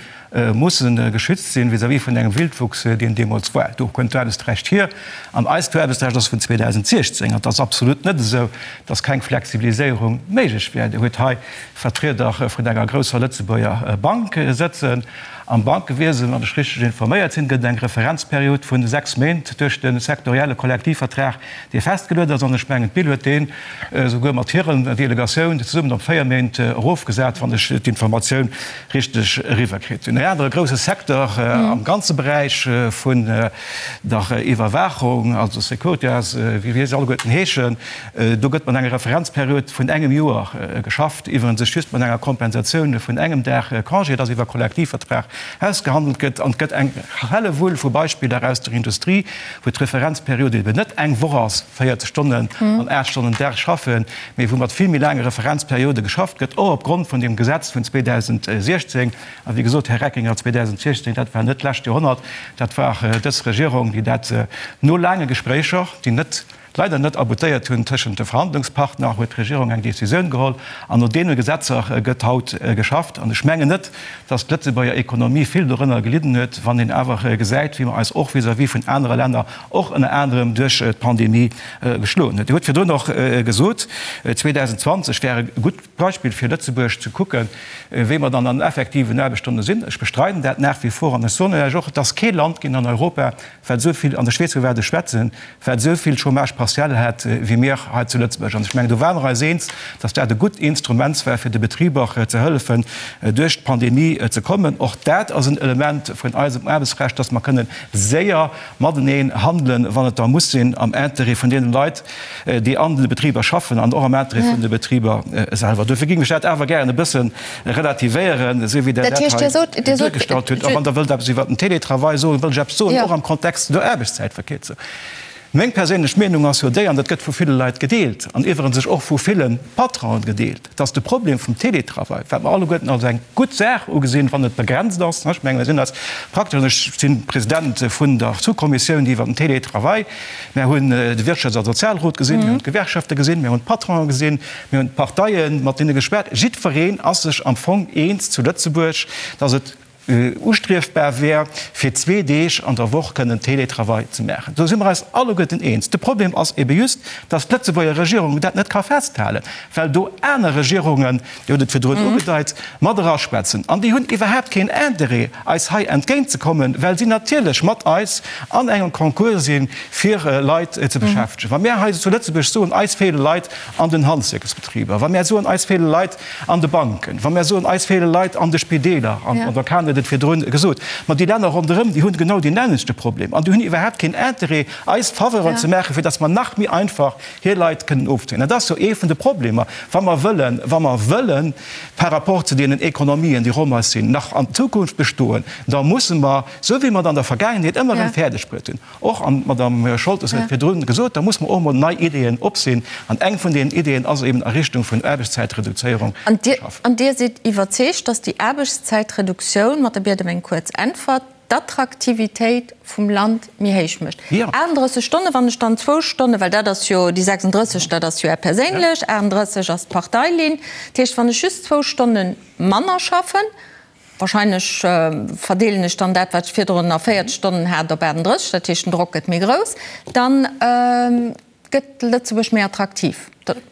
musse geschützt sinn vis-à-vis vun engem Wildwuchs, deen deemools war. Do kënnt d'Aarbechtsrecht hier. An eist Aarbechtsrecht ass vun 2016. An et ass absolut net esou, dass keng Flexibiliséierung méiglech wär. Dir hutt hei Vertrieder vun enger grousser Lëtzebuerger Bank sëtzen. Am Bankewiesen, wann ech richteg informéiert sinn, gëtt et eng Referenzperiod vun 6 Méint duerch de sektorielle Kollektivvertrag, dee festgeluet ass. An ech mengen, d'BIL huet deen esouguer mat hiren Delegatioun zesummen op 4 Méint erofgesat, wann ech d'Informatioun richteg eriwwerkritt hunn. En anere grouse Secteur am ganze Beräich vun der Iwwerwaachung, also Securitas, wéi se alleguerten heeschen, Do gëtt mat enger Referenzperiod vun engem Joer geschafft, iwwerens sech just mat enger Kompensatioun vun engem Dag Congé, dass iwwer Kollektivvertrag ausgehandelt gëtt. An et gëtt eng Hellewull vu Beispiller aus der Industrie, wou d'Referenzperiod eben net eng Woch ass, 40 Stonnen an 8 Stonnen Dag schaffen, mee wou mat vill méi laange Referenzperiode geschafft gëtt, och opgrond vun deem Gesetz vun 2016. A wéi gesot, Här Reckinger, 2016, dat war net d'lescht Joerhonnert, dat war dës Regierung, déi dat no laange Gespréicher, déi net leider net aboutéiert hunn tëschent de Verhandlungspartner, huet d'Regierung eng Décisioun geholl an no deene Gesetzer gëtt haut geschafft. An ech mengen net, dass d'Lëtzebuerger Ekonomie vill dorënner gelidden huet, wann een awer gesäit, wéi mer eis och vis-à-vis vun anere Länner, och ënner anerem duerch d'Pandemie, geschloen huet. Dir hutt virdrun och gesot, 2020 wär e gutt Beispill fir Lëtzebuerg ze kucken, wéi mer dann an effektiven Aarbechtsstonne sinn. Ech bestreiden dat nach wie vor an ech soen lech och, et ass kee Land ginn an Europa, wat esou vill, an ech weess, vu wat ech schwätzen, wat esou vill Chômage partiel hat wéi mir hei zu Lëtzebuerg. An ech mengen, do ware mer eis eens, dass dat e gutt Instrument war, fir de Betriber ze hëllefen, duerch d'Pandemie ze kommen. Och dat ass en Element vun eisem Aarbechtsrecht, dass mer kënnen séier mateneen handelen, wann et da muss sinn, am Intérêt vun deene Leit, déi an de Betriber schaffen an och am Interêt vun de Betriber selwer. Dofir géing ech dat awer gären e bësse relativéieren, esou wéi Der dat hei duergestallt hutt. A wann Der wëllt eppes iwwert den Télétravail soen, wëll ech eppes soen, och am Kontext der Aarbechtszäitverkierzung. Meng perséinlech Meenung ass jo déi, an dat gëtt vu ville Leit gedeelt, an iwwerens och vu ville Patronen gedeelt, dass de Problem vum Télétravail, wat mer alleguerten als eng gutt Saach ugesinn, wann et begrenzt ass, ech mengen, mir sinn eis praktesch, an ech si President vun der Sous-Kommissioun iwwert den Télétravail, mir hunn de Wirtschafts a Sozialrot gesinn, mir hunn d'Gewerkschafte gesinn, mir hunn d'Patronen gesinn, mir hunn d'Parteien, mat deene geschwat, jiddwereen ass sech am Fong eens zu Lëtzebuerg, dass et ustriefbar wär, fir zwee Deeg an der Woch kënnen Télétravail ze maachen. Do si mer eis alleguerten eens. De Problem ass ebe just, dass d'Lëtzebuerger Regierung dat net ka festhalen, well do aner Regierungen, Dir hutt et virdrun ugedeit, mat eraschwätzen. An déi hunn iwwerhaapt keen Interêt, eis hei entgéintzekommen, well si natierlech mat eis an engem Concours sinn, fir Leit ze beschäftegen. Wa mir hei zu Lëtzebuerg soen, eis feele Leit an den Handwierksbetriber, wa mir soen, eis feele Leit an de Banken, wa mir soen, eis feele Leit an de Spideeler, an d'Madame Cahen huet et virdrun gesot, ma déi Länner ronderëm, déi hunn genau deen nämmlechte Problem an déi hunn iwwerhaapt keen Interêt, eis Faveuren ze maachen, fir datt mer nach méi einfach hir Leit kënnen ofzéien. Dat ass jo ee vun de Problemer, wa mer wëllen, wa mer wëllen par rapport zu deenen Ekonomien, déi ronderëm eis sinn, nach an Zukunft bestoen, da musse mer, esou wéi mer et an der Vergaangenheet ëmmer erëm fäerdegbruet hunn, Och, an d'Madame Scholtes huet et virdrun gesot, da muss mer och emol nei Ideeën opsinn. An eng vun deenen Ideeën ass eben a Richtung vun Aarbechtszäitreduzéierung ze schaffen. An Dir sidd iwwerzeegt, datt déi Aarbechtszäitreduktioun, mat der Biet ëm eng kuerz Äntwert, d'Attraktivitéit vum Land méi héich mécht? 38 Stonnen, wann ech dann zwou Stonnen, well dat ass jo déi 36, dat ass jo Är perséinlech, 38 ass d'Parteilinn, dat heescht, wann ech just zwou Stonne manner schaffen, Wahrscheinlech verdeelen ech dann dat, wat ech virdrun a 40 Stonnen hat, op 38, dat heescht, den Drock gëtt méi grouss, dann gëtt Lëtzebuerg méi attraktiv.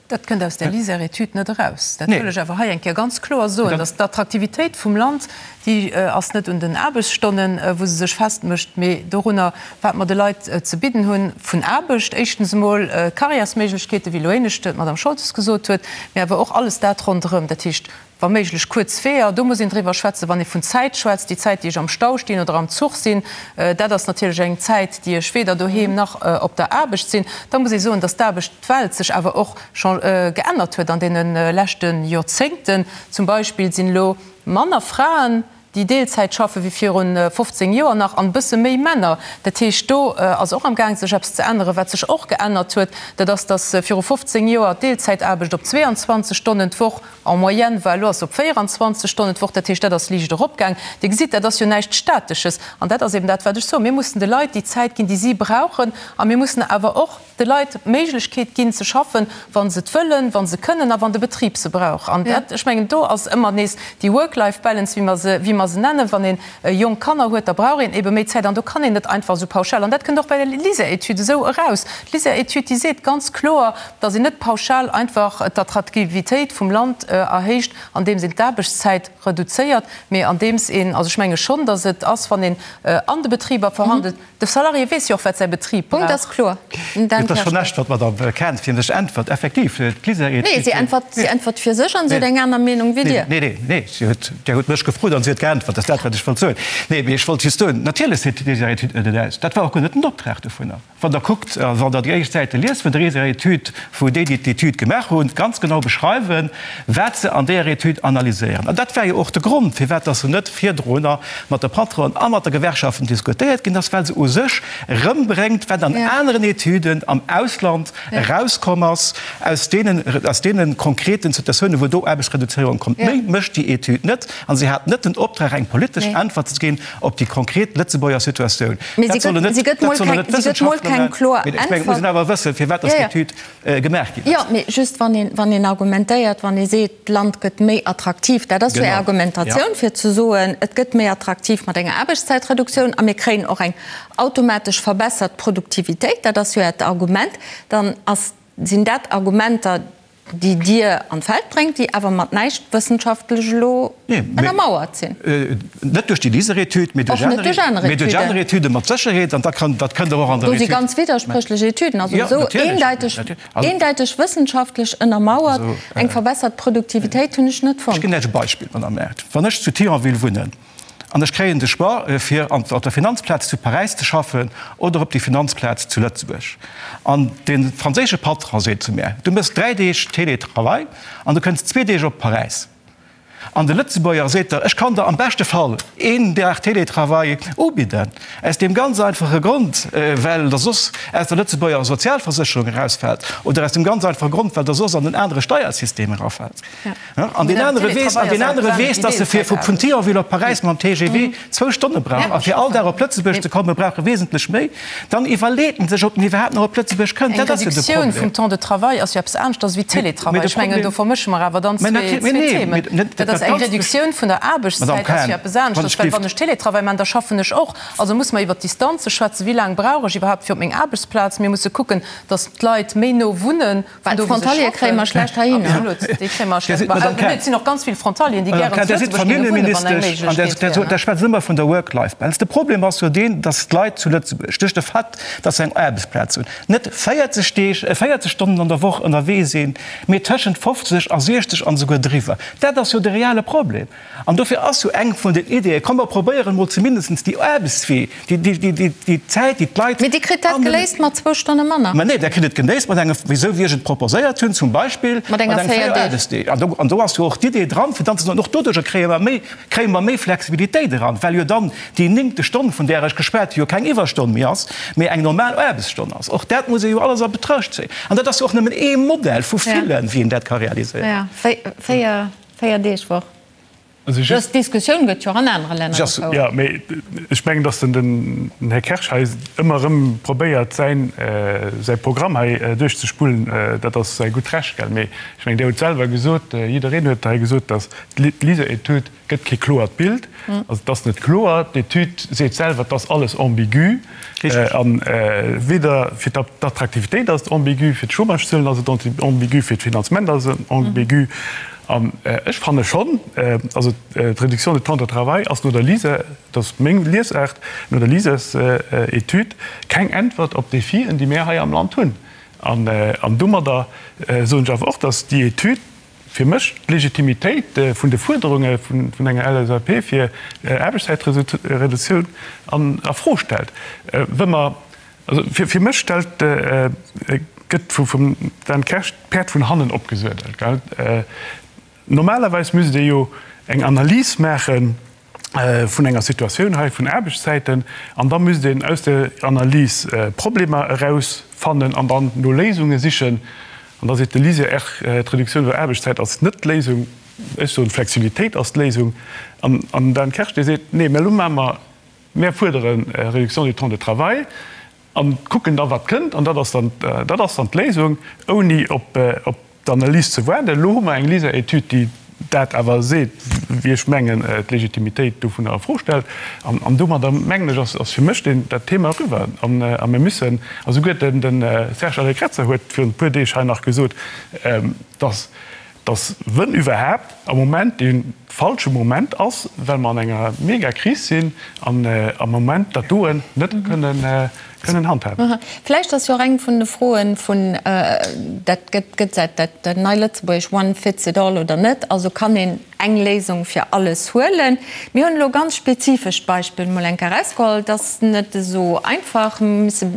Dat kënnt aus där LISER-Etüd net eraus. Dat wëll ech awer hei eng Kéier ganz kloer soen, dass d'Attraktivitéit vum Land, déi ass net un den Aarbechtsstonnen, wou se sech festmécht, mee dorunner, wat mer de Leit ze bidden hunn vun Aarbecht. Éischtens emol Karriärsméiglechkeeten, wéi elo éinescht d'Madame Scholtes gesot huet, mee awer och alles dat ronderëm, dat heescht Wa méiglech kuerz Weeër, do muss een driwwer schwätzen. Wann ee vun Zäit schwätzt, déi Zäit, déi ech am Stau stinn oder am Zuch sinn, dat ass natierlech eng Zäit, déi ech weder doheem nach op der Aarbecht sinn. Da muss ee soen, datt d'Aarbechtwelt sech awer och geännert huet an deene leschte Joerzéngten. Zum Beispill sinn elo manner Fraen, déi Deelzäit schaffe wéi virun 15 Joer nach an e bësse méi Männer. Dat heescht, do ass och am Gaang sech eppes ze änneren. Wat sech och geännert huet, dat ass, datt viru 15 Joer d'Deelzäitaarbecht op 22 Stonnen d'Woch en moyenne war, elo ass se op 24 Stonnen d'Woch. Dat heescht, dat ass liicht eropgaang. Dir gesitt, dat ass jo näischt Statesches. An dat ass eben dat, wat ech soen, Mir mussen de Leit déi Zäit ginn, déi si brauchen. A mir mussen awer och de Leit d'Méiglechkeet ginn ze schaffen, wa se et wëllen, wa se kënnen a wann de Betrib se brauch. An dat, ech mengen, do ass ëmmer nees déi Work-Life-Balance, wéi mer se, wéi mer se nennen. Wann ee jonk Kanner huet, da brauch een ebe méi Zäit an do kann een net einfach esou pauschal, an dat kënnt och bei der LISER-Etüd esou eraus, D'LISER-Etüd, déi seet ganz kloer, datt een net pauschal einfach d'Attraktivitéit vum Land erhéicht, andeems een d'Aarbechtszäit reduzéiert, mee andeems een, also ech menge schonn, datt et ass, wann een an de Betriber verhandelt, De Salarié weess jo och, wat säi Betrib Punkt ass brauch. kloer. Dan Et ass schonn näischt, wat d'Madame Cahen fir sech äntwert. Effektiv, d'LISER-Etüd. Nee, si äntwert, si äntwert fir sech an si huet eng aner Meenung wéi Dir. Nee, nee, nee, si huet, Dir hutt mech gefrot an si huet geäntwert. Dat ass dat, wat ech wollt soen. Nee, mee ech wollt just soen, natierlech seet d'LISER-Etüd net et aus. Dat war och guer net den Optrag dovunner. Wann Der kuckt, wann Der déi éischt Säite liest vun der LISER-Etüd, wou déi, déi d'Etüd gemaach hunn, ganz genau beschreiwen, wat se an deeër Etüd analyséieren. An dat war jo och de Grond, firwat dass se net virdrunner mat de Patronen a mat de Gewerkschaften diskutéiert ginn ass, well se u sech erëmbréngt, wat an aneren Etüden am Ausland erauskomm ass, aus deenen, aus deene konkreten Situatiounen, wou do Aarbechtsreduzéierung kommt. Méi mécht déi Etüd net. A se hat net den Optrag, eng politesch Äntwert ze ginn op déi konkret Lëtzebuerger Situatioun. Dat sollen net, dat sollen net d'Wëssenschaftler maachen. Mee ech mengen, et muss een awer wëssen, firwat dass déi Etüd gemaach ginn ass. Jo, mee just wann een, wann een argumentéiert, wann ee seet, d'Land gëtt méi attraktiv, dat ass jo Är Argumentatioun, fir ze soen, et gëtt méi attraktiv mat enger Aarbechtszäitreduktioun a mir kréien och eng automatesch verbessert Produktivitéit, dat ass jo Äert Argument, dann ass, sinn dat Argumenter, déi Dir an d'Feld bréngt, déi awer mat näischt wëssenschaftlech elo ënnermauert sinn. Net duerch déi LISER-Etüd, mee duerch aner Etüde mat Sécherheet. An dat kënnt Der och an der Etüd. Do si ganz widderspréchlech Etüden, also esou eendäiteg, eendäiteg wëssenschaftlech ënnermauert eng verbessert Produktivitéit hunn ech net fonnt. Ech ginn lech e Beispill, Madame Err. Wann ech zu Thionville wunnen an ech kréien de Choix, fir op der Finanzplaz zu Paräis ze schaffen oder op déi Finanzplaz zu Lëtzebuerg, an de franséische Patron seet zu mär, Du méchs 3 Deeg Télétravail an du kënns zwee Deeg op Paräis. An de Lëtzebuerger seet der, ech kann der am beschte Fall een Dag Télétravail ubidden, aus deem ganz einfache Grond, well der soss aus der Lëtzebuerger Sozialversécherung erausfält oder aus dem ganz einfache Grond, well der soss an en anere Steiersystem erafält. An deen anere weess, an deen anere weess, dass e fir vun Thionville op Paräis mam TGV zwou Stonne brauch a fir all Dag op Lëtzebuerg ze komme brauch e wesentlech méi. Dann iwwerleet en sech, ob en iwwerhaapt nach op Lëtzebuerg kënnt. Dat ass jo de Problem. Eng Reduktioun vum Temps de travail ass jo eppes aneschters wéi Télétravail. Ech mengen, do vermësche mer awer dann zwee Themen. Dat ass eng Reduktioun vun der Aarbechtszäit ass jo eppes aneschters, well wann ech Télétravail maachen, da schaffen ech och. Also muss mer iwwert d'Distanze schwätzen. Wéi laang brauch ech iwwerhaapt fir op meng Aarbechtsplaz? Mir musse kucken, dass d'Leit méi no wunnen. Well d'Frontaliere kréie mer schlecht heihinner. Absolut, déi kréie mer schlecht. Mä et sinn och ganz vill Frontalieren, déi gären zu Lëtzebuerg géinge wunnen, wann eng Méiglechkeet wär. Der schwätzt ëmmer vun der Work-Life-Balance. De Problem ass jo deen, datt d'Leit zu Lëtzebuerg duerch de Fait, datt se eng Aarbechtsplaz hunn, net 40 Deeg, 40 Stonnen an der Woch ënnerwee sinn, mee tëschent 50 a 60 an esouguer driwwer. Dat ass jo de reale Problem. An dofir ass jo eng vun den Ideeën, komm mer probéieren emol zumindest déi Aarbechtswee, déi Zäit, déi d'Leit. Mee Dir kritt dat geléist mat zwou Stonne manner. Mä nee, Der kritt et geléist mat engem, esou wéi ech et proposéiert hunn, zum Beispill mat enger 4 Aarbechtsdeeg. An do ass jo och d'Idee dran, fir dann ze soen, och doduerjer kréie mer méi, kréie mer méi Flexibilitéit eran, well jo dann déi néngte Stonn, vun där ech geschwat hu, jo keng Iwwerstonn méi ass, mee eng normal Aarbechtsstonn ass. Och dat muss ee jo alles a Betruecht zéien. An dat ass jo och nëmmen ee Modell vu villen, wéi een dat ka realiséieren. Jo, 4 Deeg Woch. Dës Diskussioun gëtt jo och an anere Länner gefouert. Jo, mee ech mengen, datt den Här Kersch hei ëmmer erëm probéiert, säin, säi Programm hei duerchzespullen. Dat ass säi gutt Recht, gell. Mee ech mengen, Dir hutt selwer gesot, jiddereen huet hei gesot, datt d'LISER-Etüd gëtt kee kloert Bild. Also et ass net kloer. D'Etüd seet selwer, et ass alles ambigu. A weder fir d'Attraktivitéit ass et ambigu, fir d'Chômagezuelen ass et ambigu, fir d'Finanzement ass et ambigu. An ech fanne schonn, also d'Réduction du temps de travail ass no der LISER, dat ass meng Liesaart, no der LISERs-Etüd keng Äntwert op d'Defien, déi mir hei am Land hunn. An domadder soen ech awer och, datt déi Etüd fir mech d'Legitimitéit vun de Fuerderunge vun enger LSAP fir Aarbechtszäitreduktioun a Fro stellt. Wa mer, also fir mech stellt, gëtt vum Dan Kersch d'Päerd vun hannen opgesuedelt. Normalerweis misst ee jo eng Analys maachen vun enger Situatioun hei vun Aarbechtszäiten an da misst een aus der Analys Problemer erausfannen an dann no Léisunge sichen. An da seet de LISER, d'Reduktioun der Aarbechtszäit ass net d'Léisung. Ech soen, d'Flexibilitéit ass d'Léisung. An den Dan Kersch, dee seet, nee, mä elo maache mer, mär fuerdere Réduction du temps de travail a kucken da wat kënnt an dat ass dann, dat ass dann d'Léisung, ouni op d'Analys ze waarden. Elo hu mer eng LISER-Etüd, déi dat awer seet, wéi ech mengen, d'Legitimitéit dovunner a Fro stellt. An domadder, mengen ech, ass fir mech dat Thema eriwwer. A mir müssen, a souguer de Serge Allegrezza huet virun e puer Deeg hei nach gesot, dass, dass wënn iwwerhaapt am Moment dee falsche Moment ass, well mer an enger Megakris sinn an am Moment dat doen net kënnen kënnen handhaben. Vläicht ass jo och eng vun de Froen vun, dat gëtt gëtt säit dat nei Lëtzebuergesch one fits it all oder net, also kann een eng Léisung fir alles huelen. Mir hunn elo ganz spezifescht Beispill mol eng Kéier erausgeholl, et ass net esou einfach, mir musse,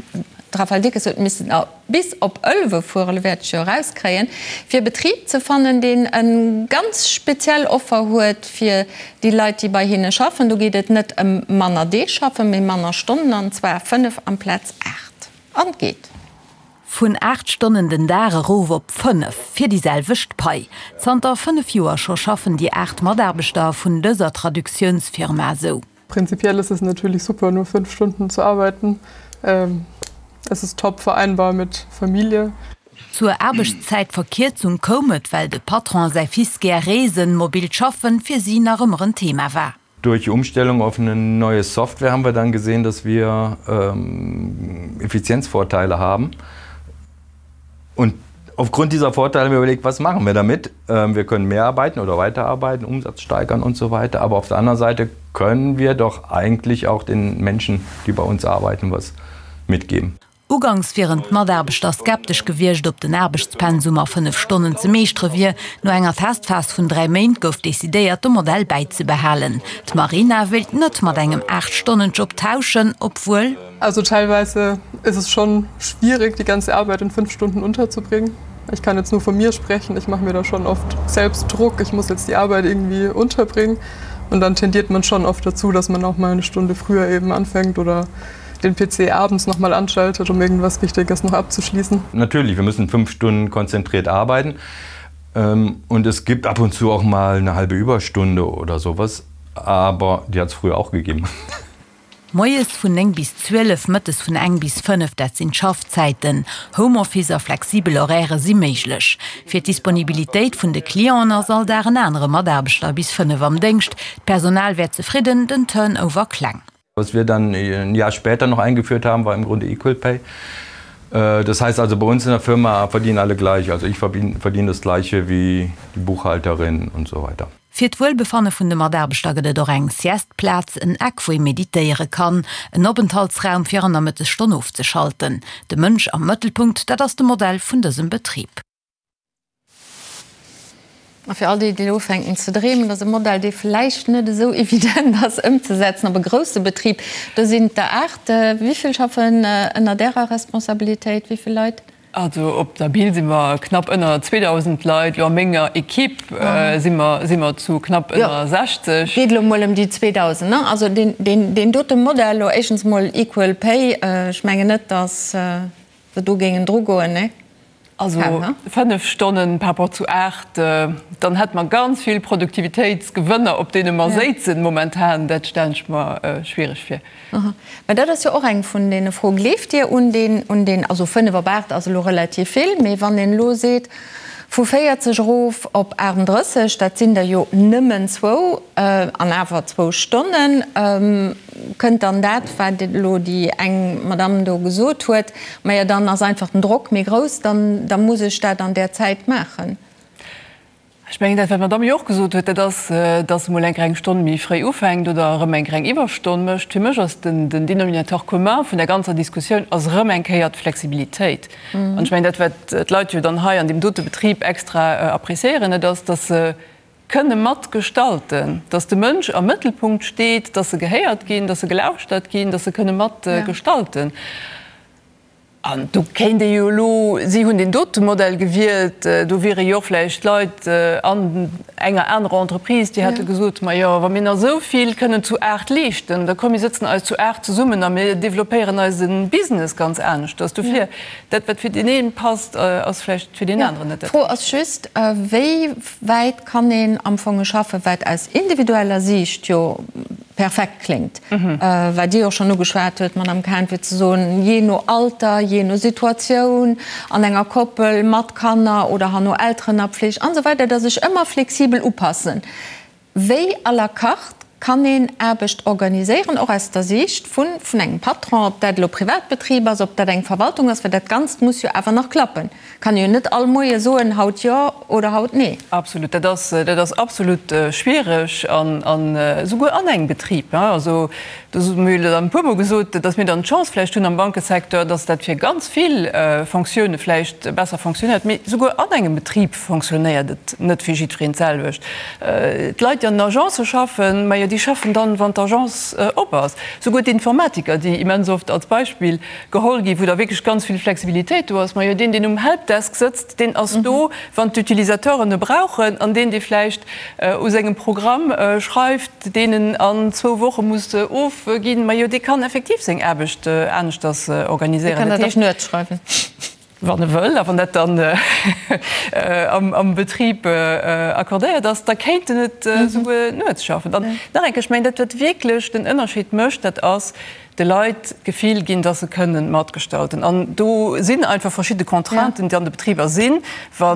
d'Raphaëlle Dickes huet missen bis op Ëlwe fueren, elo wäert ech jo erauskréien, fir e Betrib ze fannen, deen e ganz speziell Offer huet fir déi Leit, déi bei hinne schaffen. Do geet et net ëm manner Deeg schaffen, mee manner Stonnen, an zwar 5 amplaz 8. An et geet. Vun 8 Stonnen den Dag erof op 5, fir déi selwecht Pai. Zanter 5 Joer scho schaffen déi 8 Mataarbechter vun dëser Traductiounsfirma esou. Prinzipiell ist es natürlich super, nur 5 Stunden zu arbeiten. Es ist top vereinbar mit Familie. Zur Aarbechtszäitverkierzung koum et, well de Patron a säi Fils gär reesen, mobilt Schaffen fir si nach ëmmer en Thema war. Durch die Umstellung auf eine neue Software haben wir dann gesehen, dass wir Effizienzvorteile haben. Und aufgrund dieser Vorteile haben wir überlegt, was machen wir damit? Wir können mehr arbeiten oder weiterarbeiten, Umsatz steigern und so weiter. Aber auf der anderen Seite können wir doch eigentlich auch den Menschen, die bei uns arbeiten, was mitgeben. Ugangs wieren d'Mataarbechter skeptesch gewiescht, ob den Aarbechtspensum a 5 Stonnen ze meeschtere wier. No enger Testphas vun 3 Méint gouf decidéiert, de Modell bäizebehalen. D'Marina wéilt net mat engem 8 Stonnen-Job tauschen, obwuel. Also teilweise ist es schon schwierig, die ganze Arbeit in 5 Stunden unterzubringen. Ich kann jetzt nur von mir sprechen, ich mache mir da schon oft selbst Druck, ich muss jetzt die Arbeit irgendwie unterbringen. Und dann tendiert man schon oft dazu, dass man auch mal eine Stunde früher eben anfängt oder den PC abends noch mal anschaltet, um irgendwas Wichtiges noch abzuschließen. Natürlich, wir müssen fünf Stunden konzentriert arbeiten. Ähm, und es gibt ab und zu auch mal eine halbe Überstunde oder sowas, aber die hat es früher auch gegeben. Moies vun 9 bis 12, mëttes vun eng bis 5, dat sinn d'Schaffzäiten. Homeoffice a flexibel Horairë si méiglech. Fir d'Disponibilitéit vun de Clienten ass all Dag en anere Mataarbechter bis 5 am Déngscht. D'Personal wär zefridden, den Turnover kleng. Was wir dann ein Jahr später noch eingeführt haben, war im Grunde Equal Pay. Äh, das heißt also bei uns in der Firma verdienen alle gleich. Also ich verdiene das gleiche wie die Buchhalterin und so weiter. Fir d'Wuelbefanne vun de Mataarbechter gëtt et och eng Sieste-Plaz, en Eck wou ee meditéiere kann, en Openthaltsraum fir an der Mëttesstonn ofzeschalten. De Mënsch am Mëttelpunkt, dat ass de Modell vun dësem Betrib. A fir all déi, déi elo ufänken ze dreemen, dat ass e Modell, dee vläicht net esou evident ass ëmzesetzen op e grousse Betrib. Do sinn et der 8. Wéi vill schaffen ënnert Ärer Responsabilitéit? Wéi vill Leit? Also op der Bill si mer knapp ënner 2.000 Leit. Elo a menger Equipe si mer, si mer zu knapp ënner 60. Et geet elo mol ëm déi 2.000, ne? Also deen, deen, deen dote Modell elo, éischtens mol Equal Pay, ech mengen net, datt se do géingen drugoen, ne? Also 5 Stonnen par rapport zu 8, dann hätte mer ganz vill Produktivitéitsgewënner, op deene mer séizen momentan. Dat stellen ech mer schwierig vir. Mä dat ass jo och eng vun deene Froen. Gleeft Dir un deen, un deen, also 5 op 8 ass elo relativ vill, mee wann een elo seet, vu 40 erof op 38, dat sinn der jo nëmmen zwou, an awer zwou Stonnen, Kënnt dann dat, wat elo déi eng Madamm do gesot huet, Majo, dann ass einfach den Drock méi grouss, dann da muss ech dat an där Zäit maachen. Ech mengen, dat, wat d'Madamm jo och gesot huet, dat ass, dass se mol eng kleng Stonn méi fréi ufänkt oder erëm eng kleng Iwwerstonn mécht. Fir mech ass den Dénominateur commun vun der ganzer Diskussioun ass erëm eng Kéier d'Flexibilitéit. An ech mengen, dat, wat d'Leit jo dann hei an deem dote Betrib extra appréciéieren, dat ass, dass se kënne mat gestalten, dass de Mënsch am Mëttelpunkt steet, dass se gehéiert ginn, dass se gelauschtert ginn, dass se kënne mat gestalten. An do kéint ee jo elo, si hunn deen dote Modell gewielt, do wiere jo och vläicht Leit an enger anerer Entreprise, déi hätte gesot, Majo, wa mir nach esou vill kënnen zu 8 leeschten, da komm mir sëtzen eis zu 8 zesummen a mir développéieren eise Business ganz aneschters. Dofir, dat wat fir deen ee passt, ass vläicht fir deen aneren net dat D'Fro ass just, wéi wäit kann een am Fong schaffen, wat aus individueller Siicht jo perfekt kléngt, wat Dir och schonn ugeschwat huet, Madamm Cahen, fir ze soen, jee no Alter, jee no Situatioun, an enger Koppel mat Kanner oder herno Elteren a Pfleg an esou weider, dass ech ëmmer flexibel upassen. Wéi à la carte kann een Aarbecht organiséieren, och aus der Siicht vun vun engem Patron, ob dat elo Privatbetrib ass, ob dat eng Verwaltung ass, well dat Ganzt muss jo awer nach klappen. Kann ee jo net all Moie soen, haut jo oder haut nee. Absolut, dat ass, dat ass absolut schwiereg an, an esouguer an engem Betrib. Also do hu mir jo dann e puermol gesot, datt mir dann d'Chance vläicht hunn am Bankesecteur, datt dat fir ganz vill Fonctioune vläicht besser fonctionnéiert, mee esouguer an engem Betrib fonctionnéiert et net fir jiddwereen d'selwecht. D'Leit, déi an den Agencë schaffen, majo, déi schaffen dann, wann d'Agence op ass. Souguer d'Informatiker, déi immens oft als Beispill geholl ginn, wou da wierklech ganz vill Flexibilitéit do ass, majo, deen, deen um Helpdesk sëtzt, deen ass do, wann d'Utilisateuren e brauchen, an deen, dee vläicht u sengem Programm schreift, deen en an zwou Woche muss ofginn, majo, dee kann effektiv seng Aarbecht aneschters organiséieren. Dee kann dat och nuets schreiwen. Wann e wëll, a wann dat dann am Betrib accordéiert ass, da kéint en et esouguer nuets schaffen. An nach eng Kéier, ech mengen, dat wat wierklech den Ënnerscheed mécht, dat ass, de Leit d'Gefill ginn, dass se kënnen matgestalten. An do sinn einfach verschidde Contrainten, déi an de Betriber sinn. Wa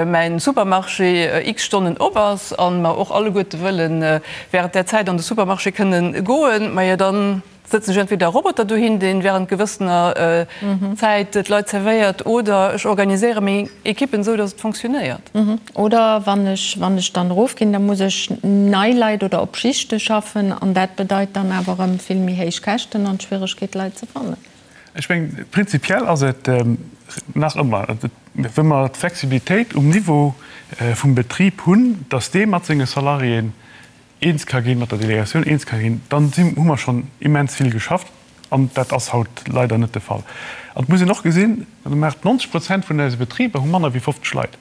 mäin Supermarché x Stonnen op ass a mer och alleguerte wëlle während där Zäit an de Supermarché kënnen goen, majo dann, Sëtzen ech entweder e Roboter dohin, deen während gewëssener Zäit d'Leit zerwéiert, oder ech organiséiere meng Equippen esou, dass et fonctionnéiert. Oder wann ech, wann ech dann erofginn, da muss ech nei Leit oder op Schichte schaffen, an dat bedeit dann awer erëm vill méi héich Käschten an d'Schwieregkeet, Leit ze fannen. Ech mengen, prinzipiell ass et nach ëmmer, wa mer d'Flexibilitéit um Niveau vum Betrib hunn, dass dee mat senge Salariéen eens ka ginn, mat der Delegatioun eens ka ginn, dann si hu mer schonn immens vill geschafft. An dat ass haut leider net de Fall. An et muss een och gesinn, 90 Prozent vun eise Betriber hu manner wéi 50 Leit.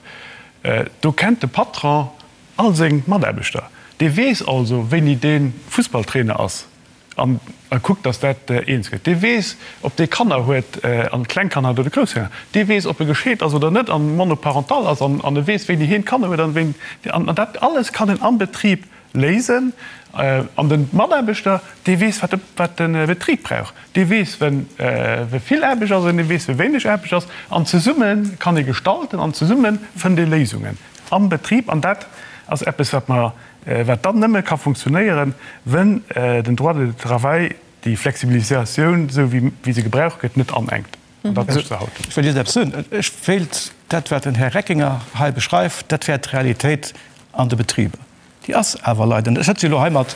Do kennt de Patron all seng Mataarbechter. Dee weess also, wéini dee Fussballtrainer ass an e kuckt, datt dat eens gëtt. Dee weess, ob dee Kanner huet an kleng Kanner huet oder grouss Kanner. Dee weess, ob e gescheet ass oder net an monoparental ass an e weess, wéini hien Kanner huet an wéini. An dat alles kann en am Betrib léisen. An de Mataarbechter, dee weess, wat de Betrib brauch. Dee weess, wéi vill Aarbecht ass an dee weess, wéi wéineg Aarbecht ass. An zesumme kann ee gestalten an zesumme fënnt ee Léisungen am Betrib. An dat ass eppes, wat mer, wat dann nëmme ka funktionéieren, wenn den Droit du travail déi Flexibilisatioun, esou wéi se gebraucht gëtt, net anenkt. An dat mécht se haut. Ech wëll just eppes soen. Ech wéilt dat, wat den Här Reckinger hei beschreift, dat wär d'Realitéit an de Betriber. Déi ass awer leider net. Ech sëtze jo elo hei mat,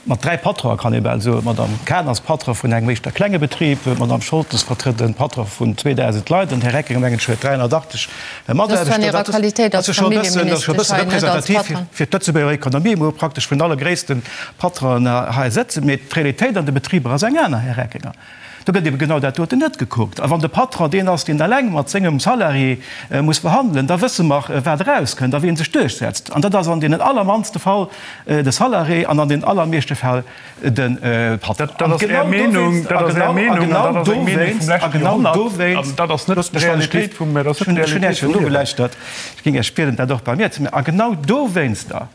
mat 3 Patronen, kann ee bal soen. D'Madame Cahen ass Patron vun engem éischter klenge Betrib, d'Madame Scholtes vertrëtt e Patron vun 2.000 Leit an den Här Reckinger, mengen ech, huet 380 Mataarbechter. Dat ass jo scho e bëssen, dat ass scho e bësse representativ fir d'Lëtzebuerger Ekonomie, wou praktesch vun alle gréisste Patronen hei sëtzen. Mee d'Realitéit an de Betriber ass eng aner, Här Reckinger. Do gëtt ebe genau dat doten net gekuckt. A wann de Patron deen ass, deen eleng mat sengem Salarié muss verhandelen, da wësse mer, wat erauskënnt a wien sech duerchsetzt. An dat ass an deenen allermannste Fall de Salarié an an den allermeeschte Fäll de Patron. Dat ass Är Meenung, dat ass Är Meenung an dat ass eng Meenung vum leschte Joerhonnert an dat ass net d'Realitéit vum, dat ass net d'Realitéit vum Liewen. Ech hunn Iech jo nogelauschtert. Ech géing Iech bieden, dat och bei mir ze maachen. A genau dowéinster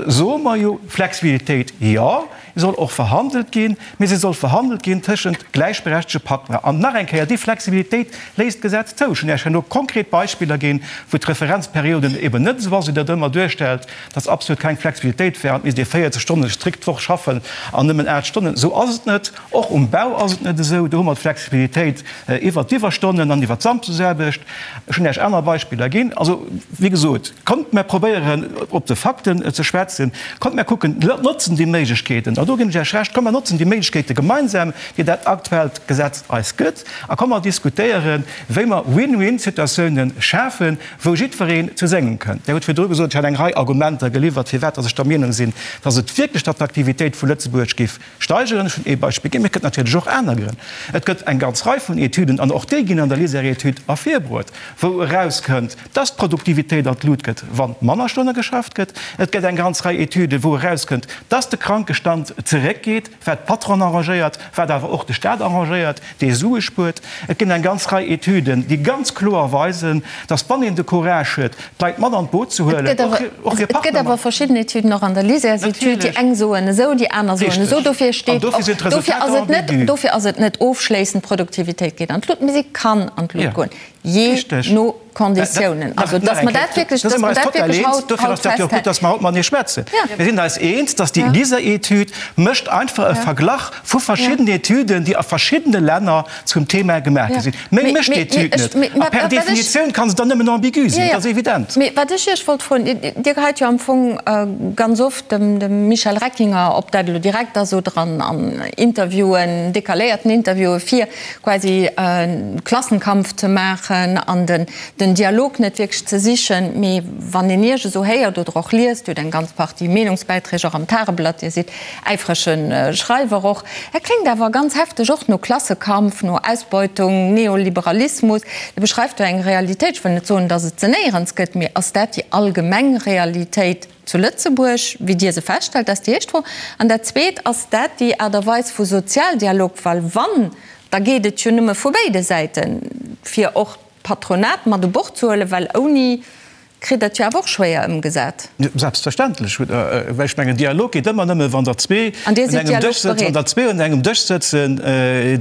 Soe mer jo, Flexibilitéit, jo, soll och verhandelt ginn, mee se soll verhandelt ginn tëschent gläichberechtege Partner. An nach eng Kéier, déi Flexibilitéit léisst d'Gesetz zou. Ech hunn Iech herno konkret Beispiller ginn, wou d'Referenzperioden eben net esou ass, wéi Der et ëmmer duerstellt, dass absolut keng Flexibilitéit wär an et misst ee 40 Stonne strikt d'Woch schaffen an nëmmen 8 Stonnen. Esou ass et net. Och um Bau ass et net esou. Do hu mer d'Flexibilitéit iwwert d'Iwwerstonnen an iwwert d'Samsdesaarbecht. Ech hunn Iech aner Beispiller ginn. Also, wéi gesot, kommt mer probéieren, op de Fakten ze schwätzen. Kommt mer kucken, notzen déi Méiglechkeeten, an do ginn ech Iech Recht, kommt mer notzen déi Méiglechkeete gemeinsam, déi dat aktuellt Gesetz eis gëtt, a kommt mer diskutéieren, wéi mer Win-win-Situatiounen schafen, wou jiddwereen zu sengem kënnt. Dir hutt virdru gesot, ech hätt eng Rei Argumenter geliwwert, firwat dass ech der Meenung sinn, dass et wierklech d'Attraktivitéit vu Lëtzebuerg géif Steigeren. Ech hunn ee Beispill ginn, mee et gëtt natierlech och aner Grënn. Et gëtt eng ganz Rei vun Etüden, an och déi ginn an der LISER-Etüd ervirbruet, wou erauskënnt, dass d'Produktivitéit an d'Lut gëtt, wa manner Stonne geschafft gëtt. Et gëtt eng ganz Rei Etüden, wou erauskënnt, dass de Krankestand zeréckgeet, wat d'Patronen arrangéiert, wat awer och de Stat arrangéiert, dee Sue spuert. Et ginn eng ganz Rei Etüden, déi ganz kloer weisen, dass, wann een de Courage huet, d'Leit mat an d'Boot ze huelen, och hir Partner mat. Et gëtt awer verschidden Etüden, och an der LISERs-Etüd, déi eng soen esou, déi aner soen esou. Dofir steet och, dofir ass et net, dofir ass et net ofschléissend, d'Produktivitéit geet an d'Lut, mee si kann an d'Lut goen, jee no Konditiounen. Also, dass mer dat wierklech, dass mer dat wierklech haut, Dofir ass dat jo och gutt, dass mer haut matenee schwätzen. Mir sinn eis eens, dass déi LISER-Etüd mécht einfach e Verglach vu verschiddenen Etüden, déi a verschiddene Länner zum Thema gemaach gi sinn. Méi mécht d'Etüd net. A per Definitioun kann se dann nëmmen ambigu sinn, dat ass evident. Mee wat ech Iech wollt froen, Dir geheit jo am Fong ganz oft dem Michel Reckinger, ob dat elo direkt ass oder an Interviewen, decaléierten Interviewen, vir, quasi Klassenkampf ze maachen an den Dialog net wierklech ze sichen. Mee wann een Iech esou héiert oder och liest, Dir hutt eng ganz Partie Meenungsbäiträg och am Tageblatt, Dir sidd äifrege Schreiwer och, dat kléngt awer ganz hefteg och no Klassekampf, no Ausbeutung, Neoliberalismus. Dir beschreift do eng Realitéit, ech wëll net soen, datt et se néierens gëtt, mee ass dat déi allgemeng Realitéit zu Lëtzebuerg, wéi Dir se feststellt? Dat ass déi éischt Fro. An dat Zweet, Ass dat déi Aart a Weis vu Sozialdialog? Well wann, da geet et jo nëmme vu béide Säiten, fir och d'Patronat mat u Bord ze huelen, well ouni kritt Der et jo awer och schwéier ëmgesat. Selbstverständlech, well ech mengen, Dialog geet ëmmer nëmme, wann der zwee un engem Dësch sëtzen, wann der zwee un engem Dësch sëtzen,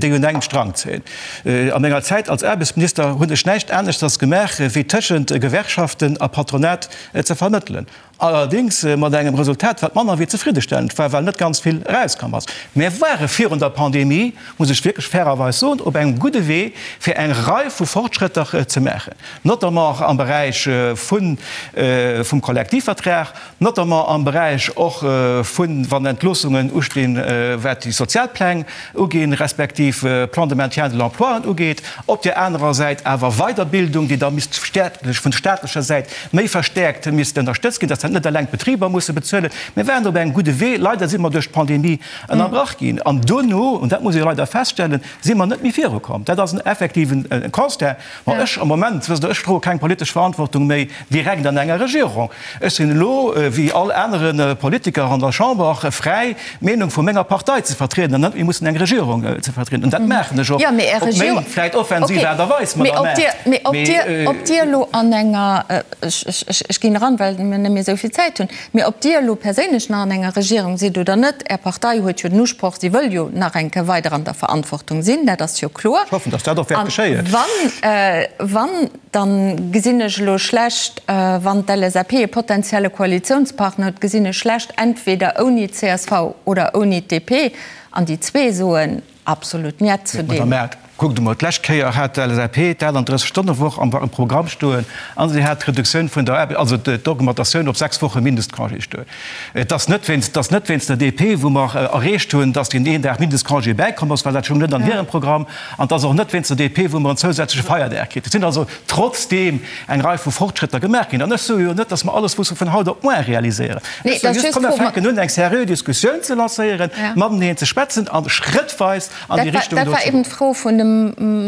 déi un engem Strang zéien. A menger Zäit als Aarbechtsminister hunn ech näischt aneschters gemaach, wéi tëschent Gewerkschaften a Patronat ze vermëttelen. Allerdéngs mat engem Resultat, wat manner wéi zefriddestellend war, well net ganz vill erauskomm ass. Mär ware virun der Pandemie, muss ech wierklech fairerweis soen, op engem gudde Wee, fir eng Rei vu Fortschrëtter ze maachen, notamment am Beräich vun vum Kollektivvertrag, notamment am Beräich och vun, wann Entloossungen ustinn, wat déi Sozialpläng uginn, respektiv Plan de maintien de l'emploien ugeet, op där anerer Säit awer Weiderbildung, déi da misst vun staatlecher Säit méi verstäerkt misst ënnerstëtzt ginn. dat net eleng d'Betriber musse bezuelen. Mir waren op engem gudde Wee. Leider si mer duerch d'Pandemie ënnerbrach ginn. An dono, an dat muss ee leider feststellen, si mer net méi virukomm. Dat ass en effektiven Constat. Ma ech am Moment, wësst Der, ech droe keng politesch Verantwortung méi direkt an enger Regierung. Ech sinn elo, wéi all anere Politiker an der Chamber, fräi, d'Meenung vu menger Partei ze vertrieden an net méi mussen eng Regierung ze vertrieden. An dat maachen ech och op meng vläicht offensiv Aart a Weis, Madame Err. Mee ob Dir elo an enger, ech ginn eran, well mir net méi esou vill Zäit hunn, mee ob Dir elo perséinlech nach an enger Regierung sidd oder net, Är Partei huet jo den Usproch, si wëll jo nach eng Kéier weider an der Verantwortung sinn, dat ass jo kloer. Ech hoffen, datt dat och wäert geschéien. A wann, Dann gesinn ech elo schlecht, wann d'LSAP e potenzielle Koalitionspartner huet, gesinn ech schlecht, entweder ouni d'CSV oder ouni d'DP, an déi zwee soen absolut Njet zu deem. Madame Err, kuckt emol, d'lescht Kéier hat d'LSAP d'38-Stonne-Woch am Programm stoen a si hat d'Reduktioun vun der Aarbecht, also d'Augmentatioun op 6 Woche Mindestcongé stoen. Et ass net wéinst, et ass net wéinst der DP, wou mer erreecht hunn, datt deen een Dag Mindestcongé bäikomm ass, well dat stoung net an hirem Programm. An et ass och net wéinst der DP, wou mer en zousätzleche Feierdag kritt. Et sinn also trotzdeem eng Rei vu Fortschrëtter gemaach ginn. An ech soe jo net, datt mer alles musse vun haut op muar realiséieren. Ech soe just, komm mer fänken un, eng seriö Diskussioun ze lancéieren, mateneen ze schwätzen a schrëttweis an déi Richtung do ze goen. Dat war eben d'Fro vun dem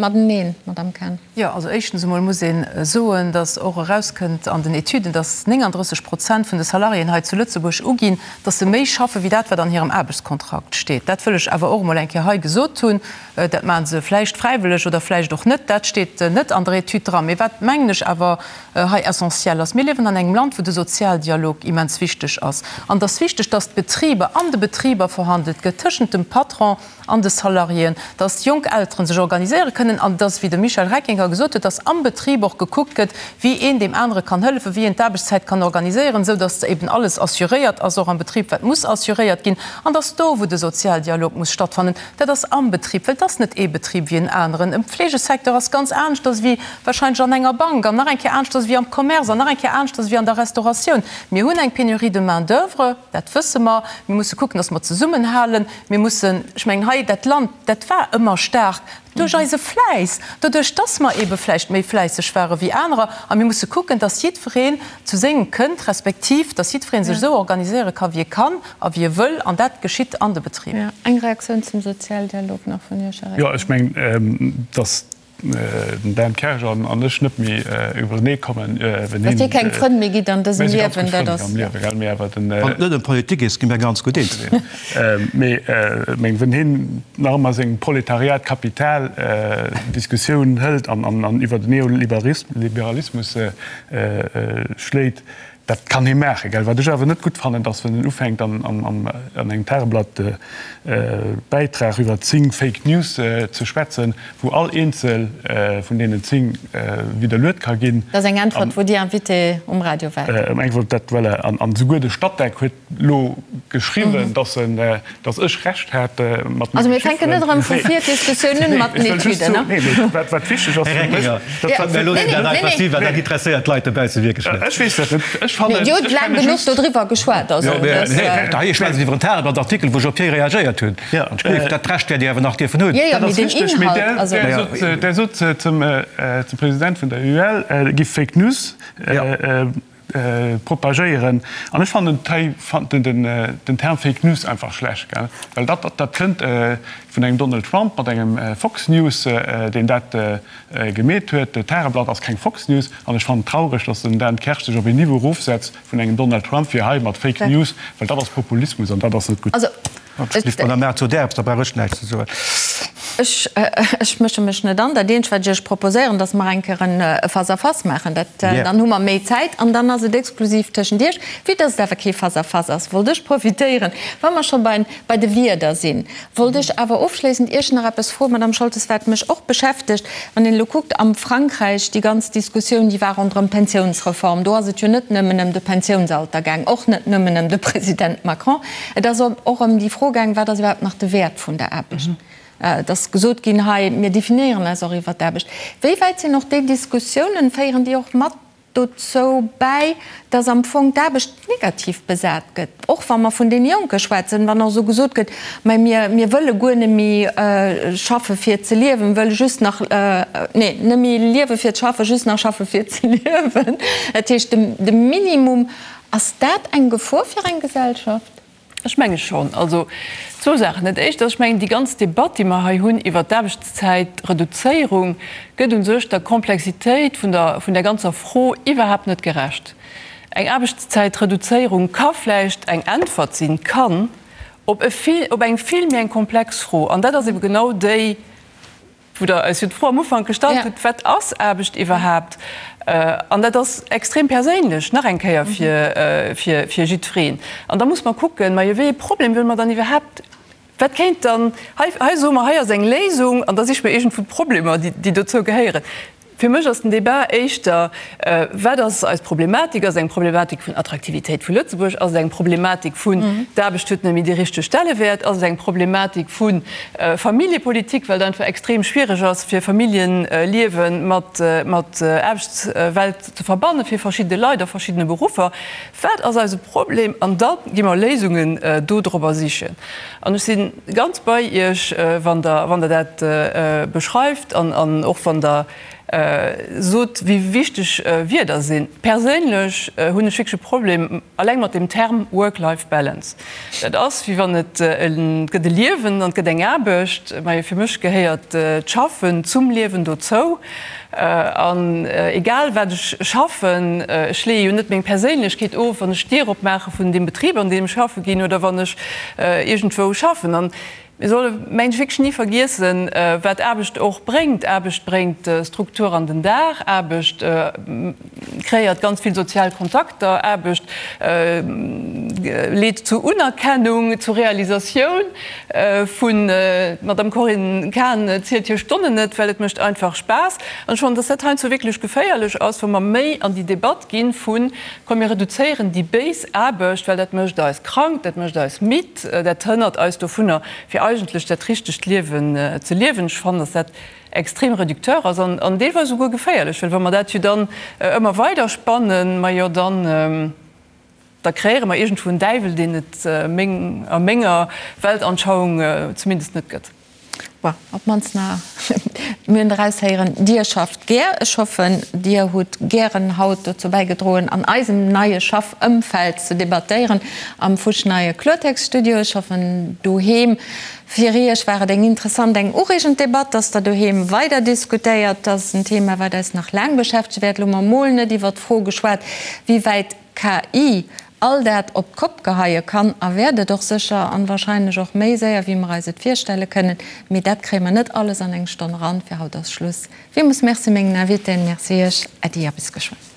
Mateneen, Madamm Cahen. Jo, also éischtens emol muss ee soen, datt och erauskënnt an den Etüden, datt 39 Prozent vun de Salariéen hei zu Lëtzebuerg uginn, datt se méi schaffe wéi dat, wat an hirem Aarbechtskontrakt steet. Dat wëll ech awer och emol eng Kéier hei gesot hunn. Dat maache se vläicht fräiwëlleg oder vläicht och net, dat steet net an der Etüd dran. Mee wat, mengen ech, awer hei essentiell ass, Mir liewen an engem Land, wou de Sozialdialog immens wichteg ass. An et ass wichteg, datt d'Betriber, an de Betriber verhandelt gëtt tëschent dem Patron an de Salariéen, datt jonk Elteren sech organiséiere kënnen an datt, wéi de Michel Reckinger gesot huet, datt am Betrib och gekuckt gëtt, wéi een deem anere kann hëllefen, wéi een d'Aarbechtszäit kann organiséieren, esou datt eben alles assuréiert ass, och am Betrib, wat muss assuréiert ginn, an datt do, wou de Sozialdialog muss stattfannen, Dat ass am Betrib, well et ass net ee Betrib wéi en aneren. Am Pflegesecteur ass ganz aneschters wéi wahrscheinlech an enger Bank an nach eng Kéier aneschters wéi am Commerce an nach eng Kéier aneschters wéi an der Restauratioun. Mir hunn eng Pénurie de main d'oeuvre, dat wësse mer. Mir musse kucken, dass mer zesummenhalen. Mir mussen, ech mengen hei, dat Land, dat war ëmmer staark duerch eise Fläiss, doduerch dass mer eebe vläicht méi fläisseg ware wéi anerer. A mir musse kucken, dass jiddwereen zu sengem kënnt, respektiv dass jiddweree sech esou organiséiere ka wéi e kann. A wie wëll, an dat geschitt an de Betriber. Eng Reaktioun zum Sozialdialog nach vun Iech, Här Reckinger. Jo, ech mengen, datt den Dan Kersch an ech net méi iwwerenee kommen, wenn hien. Datt Dir keng Frënn méi gitt an dësem Liewen, dat ass. Mir si ganz gutt Frënn am Liewen, gell, mee awer den. Wann et net ëm Politik geet, gi mir ganz gutt eens. Mee meng, wenn hien nach ëmmer seng Proletariat-Kapital-Diskussioun hëlt an iwwer den Neoliberalismus schléit, Dat kann hie maachen, gell. Wat ech awer net gutt fannen, dass wann en ufänkt an engem Tageblatt Bäitrag iwwer 10 Fake News ze schwätzen, wou all eenzel vun deenen 10 widderluet ka ginn. Dat ass eng Äntwert, wou Dir Invité um Radio waart. Eng Äntwert, dat, voilà. An souguer de Statec huet elo geschriwwen, dass en, dass ech Recht hat mat menge Also mir fänken net erëm vu vir d'Diskussioun un mat den Etüden, ne? Nee, mee wat, wat wichteg ass fir mech, dat wat. Mir loossen dat einfach si, well dat interesséiert d'Leit dobausse wierklech net. Ech weess dat net. Ech fannen. Dir hutt laang genuch dodriwwer geschwat, also dat. Hei schwätzt iwwer en Tageblatt-Artikel, wou ech op hie reagéiert hunn. Dat Recht wäert Dir awer nach dierfen hunn. Jo, jo, mee den Inhalt, also. Der sot zum President vun der UEL, giff Fake News Propagéieren. An ech fannen den Term Fake News einfach schlecht, gell? Well dat, dat kënnt vun engem Donald Trump mat engem Fox News, deen dat gemeet huet. D'Tageblatt ass keng Fox News. An ech fannen et traureg, datt den Dan Kersch sech op een Niveau erofsetzt vun engem Donald Trump, fir hei mat Fake News, well dat ass Populismus an dat ass net gutt. Madame Err, zu där eppes, da brauch ech näischt ze soen. Ech, ech mësche mech net an. Dat eenzegt, wat ech Iech proposéieren, dass mer eng Kéier en Face-à-face maachen. Dat, dann hu mer méi Zäit an dann ass et exklusiv tëschent Iech. Vue dass et awer kee Face-à-face ass, wollt ech profitéieren, wa mer scho bei, bei de Wierder sinn, wollt ech awer ofschléissend Iech nach eppes froen, Madame Scholtes, wat mech och beschäftegt, Wann een elo kuckt am Frankräich, déi ganz Diskussioun, déi war ronderëm d'Pensiounsreform, do ass et jo net nëmmen ëm de Pensiounsalter gaang, och net nëmmen ëm de President Macron, et ass och ëm déi Fro gaang, wat ass iwwerhaapt nach de Wäert vun der Aarbecht? Et ass gesot ginn hei, mir definéieren eis och iwwer d'Aarbecht. Wéi wäit sinn och déi Diskussiounen, féieren déi och mat? dozou bäi, dass am Fong d'Aarbecht negativ besat gëtt? Och wa mer vun deene Jonke schwätzen, wann och esou gesot gëtt, mä mir, mir wëlle guer net méi schaffe fir ze liewen, wëlle just nach, nee, net méi liewe fir ze schaffen, just nach schaffe fir ze liewen. Dat heescht, de Minimum, ass dat eng Gefor fir eng Gesellschaft? Ech menge schonn. Also zwou Saachen. Dat Éischt ass, ech mengen, déi ganz Debatt, déi mer hei hunn iwwert d'Aarbechtszäitreduzéierung, gëtt u sech der Komplexitéit vun der, vun där ganzer Fro iwwerhaapt net gerecht. Eng Aarbechtszäitreduzéierung ka vläicht eng Äntwert sinn, kann, op e vill, op eng vill méi eng komplex Fro. An dat ass ebe genau déi, Wou Der eis jo d'Fro am Ufank gestallt hutt, Wat ass Aarbecht iwwerhaapt? An dat ass extrem perséinlech, nach eng Kéier, fir jiddwereen. An da muss mer kucken, Majo, wéi ee Problem wëlle mer dann iwwerhaapt, wat kéint dann, hei, hei soe mer, hei ass eng Léisung, an da siche mer iergendwou d'Problemer, déi dozou gehéieren. Fir mech ass den Débat éischter, Wat ass eis Problematik? Ass et eng Problematik vun Attraktivitéit vu Lëtzebuerg? Ass et eng Problematik vun, d'Aarbecht huet net méi dee richtege Stellewäert? Ass et eng Problematik vu Familljepolitik, well et einfach extrem schwiereg ass, fir Familljeliewe mat Aarbechtswelt ze verbanne fir verschidde Leit a verschiddene Beruffer? Wat ass eise Problem? An da gi mer Léisungen dodrobber sichen. An ech si ganz bei Iech, wann Der, wann Der dat beschreift an, an och wann Der sot, wéi wichteg Wierder sinn. Perséinlech hunn ech wierklech e Problem alleng mat dem Term Work-Life Balance. Dat ass, wéi wann et, et gëtt e Liewen an et gëtt eng Aarbecht. Majo, fir mech gehéiert d'Schaffen zum Liewen dozou. An egal wat ech schaffen, ech leeë jo net meng Perséinlechkeet of, wann ech d'Dier opmaache vun deem Betrib, an deem ech schaffe ginn, oder wann ech iergendwou schaffen. An mir solle mengen ech wierklech ni vergiessen, wat Aarbecht och bréngt. Aarbecht bréngt Struktur an den Dag, Aarbecht kreéiert ganz vill sozial Kontakter, Aarbecht leet zu Unerkennung, zu Realisatioun. Vun, D'Madame Corinne Cahen zielt hir Stonnen net, well et mécht einfach Spaass. An ech fannen, dass dat heiansdo wierklech geféierlech ass, wa mer méi an déi Debatt gi vun, komm mir reduzéieren déi béis Aarbecht, well dat mécht eis krank, dat mécht eis midd, dat hënnert eis dovunner, fir eigentlech dat richtegt Liewen ze liewen. Ech fannen, dass dat extrem réducteur ass an deelweis esouguer geféierlech, well wa mer dat jo dann ëmmer weider spannen, majo dann, Da kreéiere mer iergendwou en Däiwel, deen et a menger Weltanschauung zumindest net gëtt. Bon, op d'mannst nach, mir hunn eraushéieren, Dir schafft gär. Ech hoffen, Dir hutt gären haut dozou bäigedroen, an eisem neie Schaffëmfeld ze debattéieren am fuschneie Kloertext-Studio. Ech hoffen, doheem fir Iech war et eng interessant, eng ureegend Debatt, dass Der doheem weider diskutéiert. Dat ass en Thema, wat eis nach laang beschäftege wäert. Elo hu mer mol net iwwert d'Fro geschwat, wéi wäit KI all dat op d'Kopp geheie kann a wäert et och sécher an wahrscheinlech och méi séier wéi mer eis et virstelle kënnen. Mee dat kréie mer net alles an eng Stonn eran. Fir haut ass Schluss. Villmools Merci mengen Invitéen, Merci Iech, Äddi a bis geschwënn.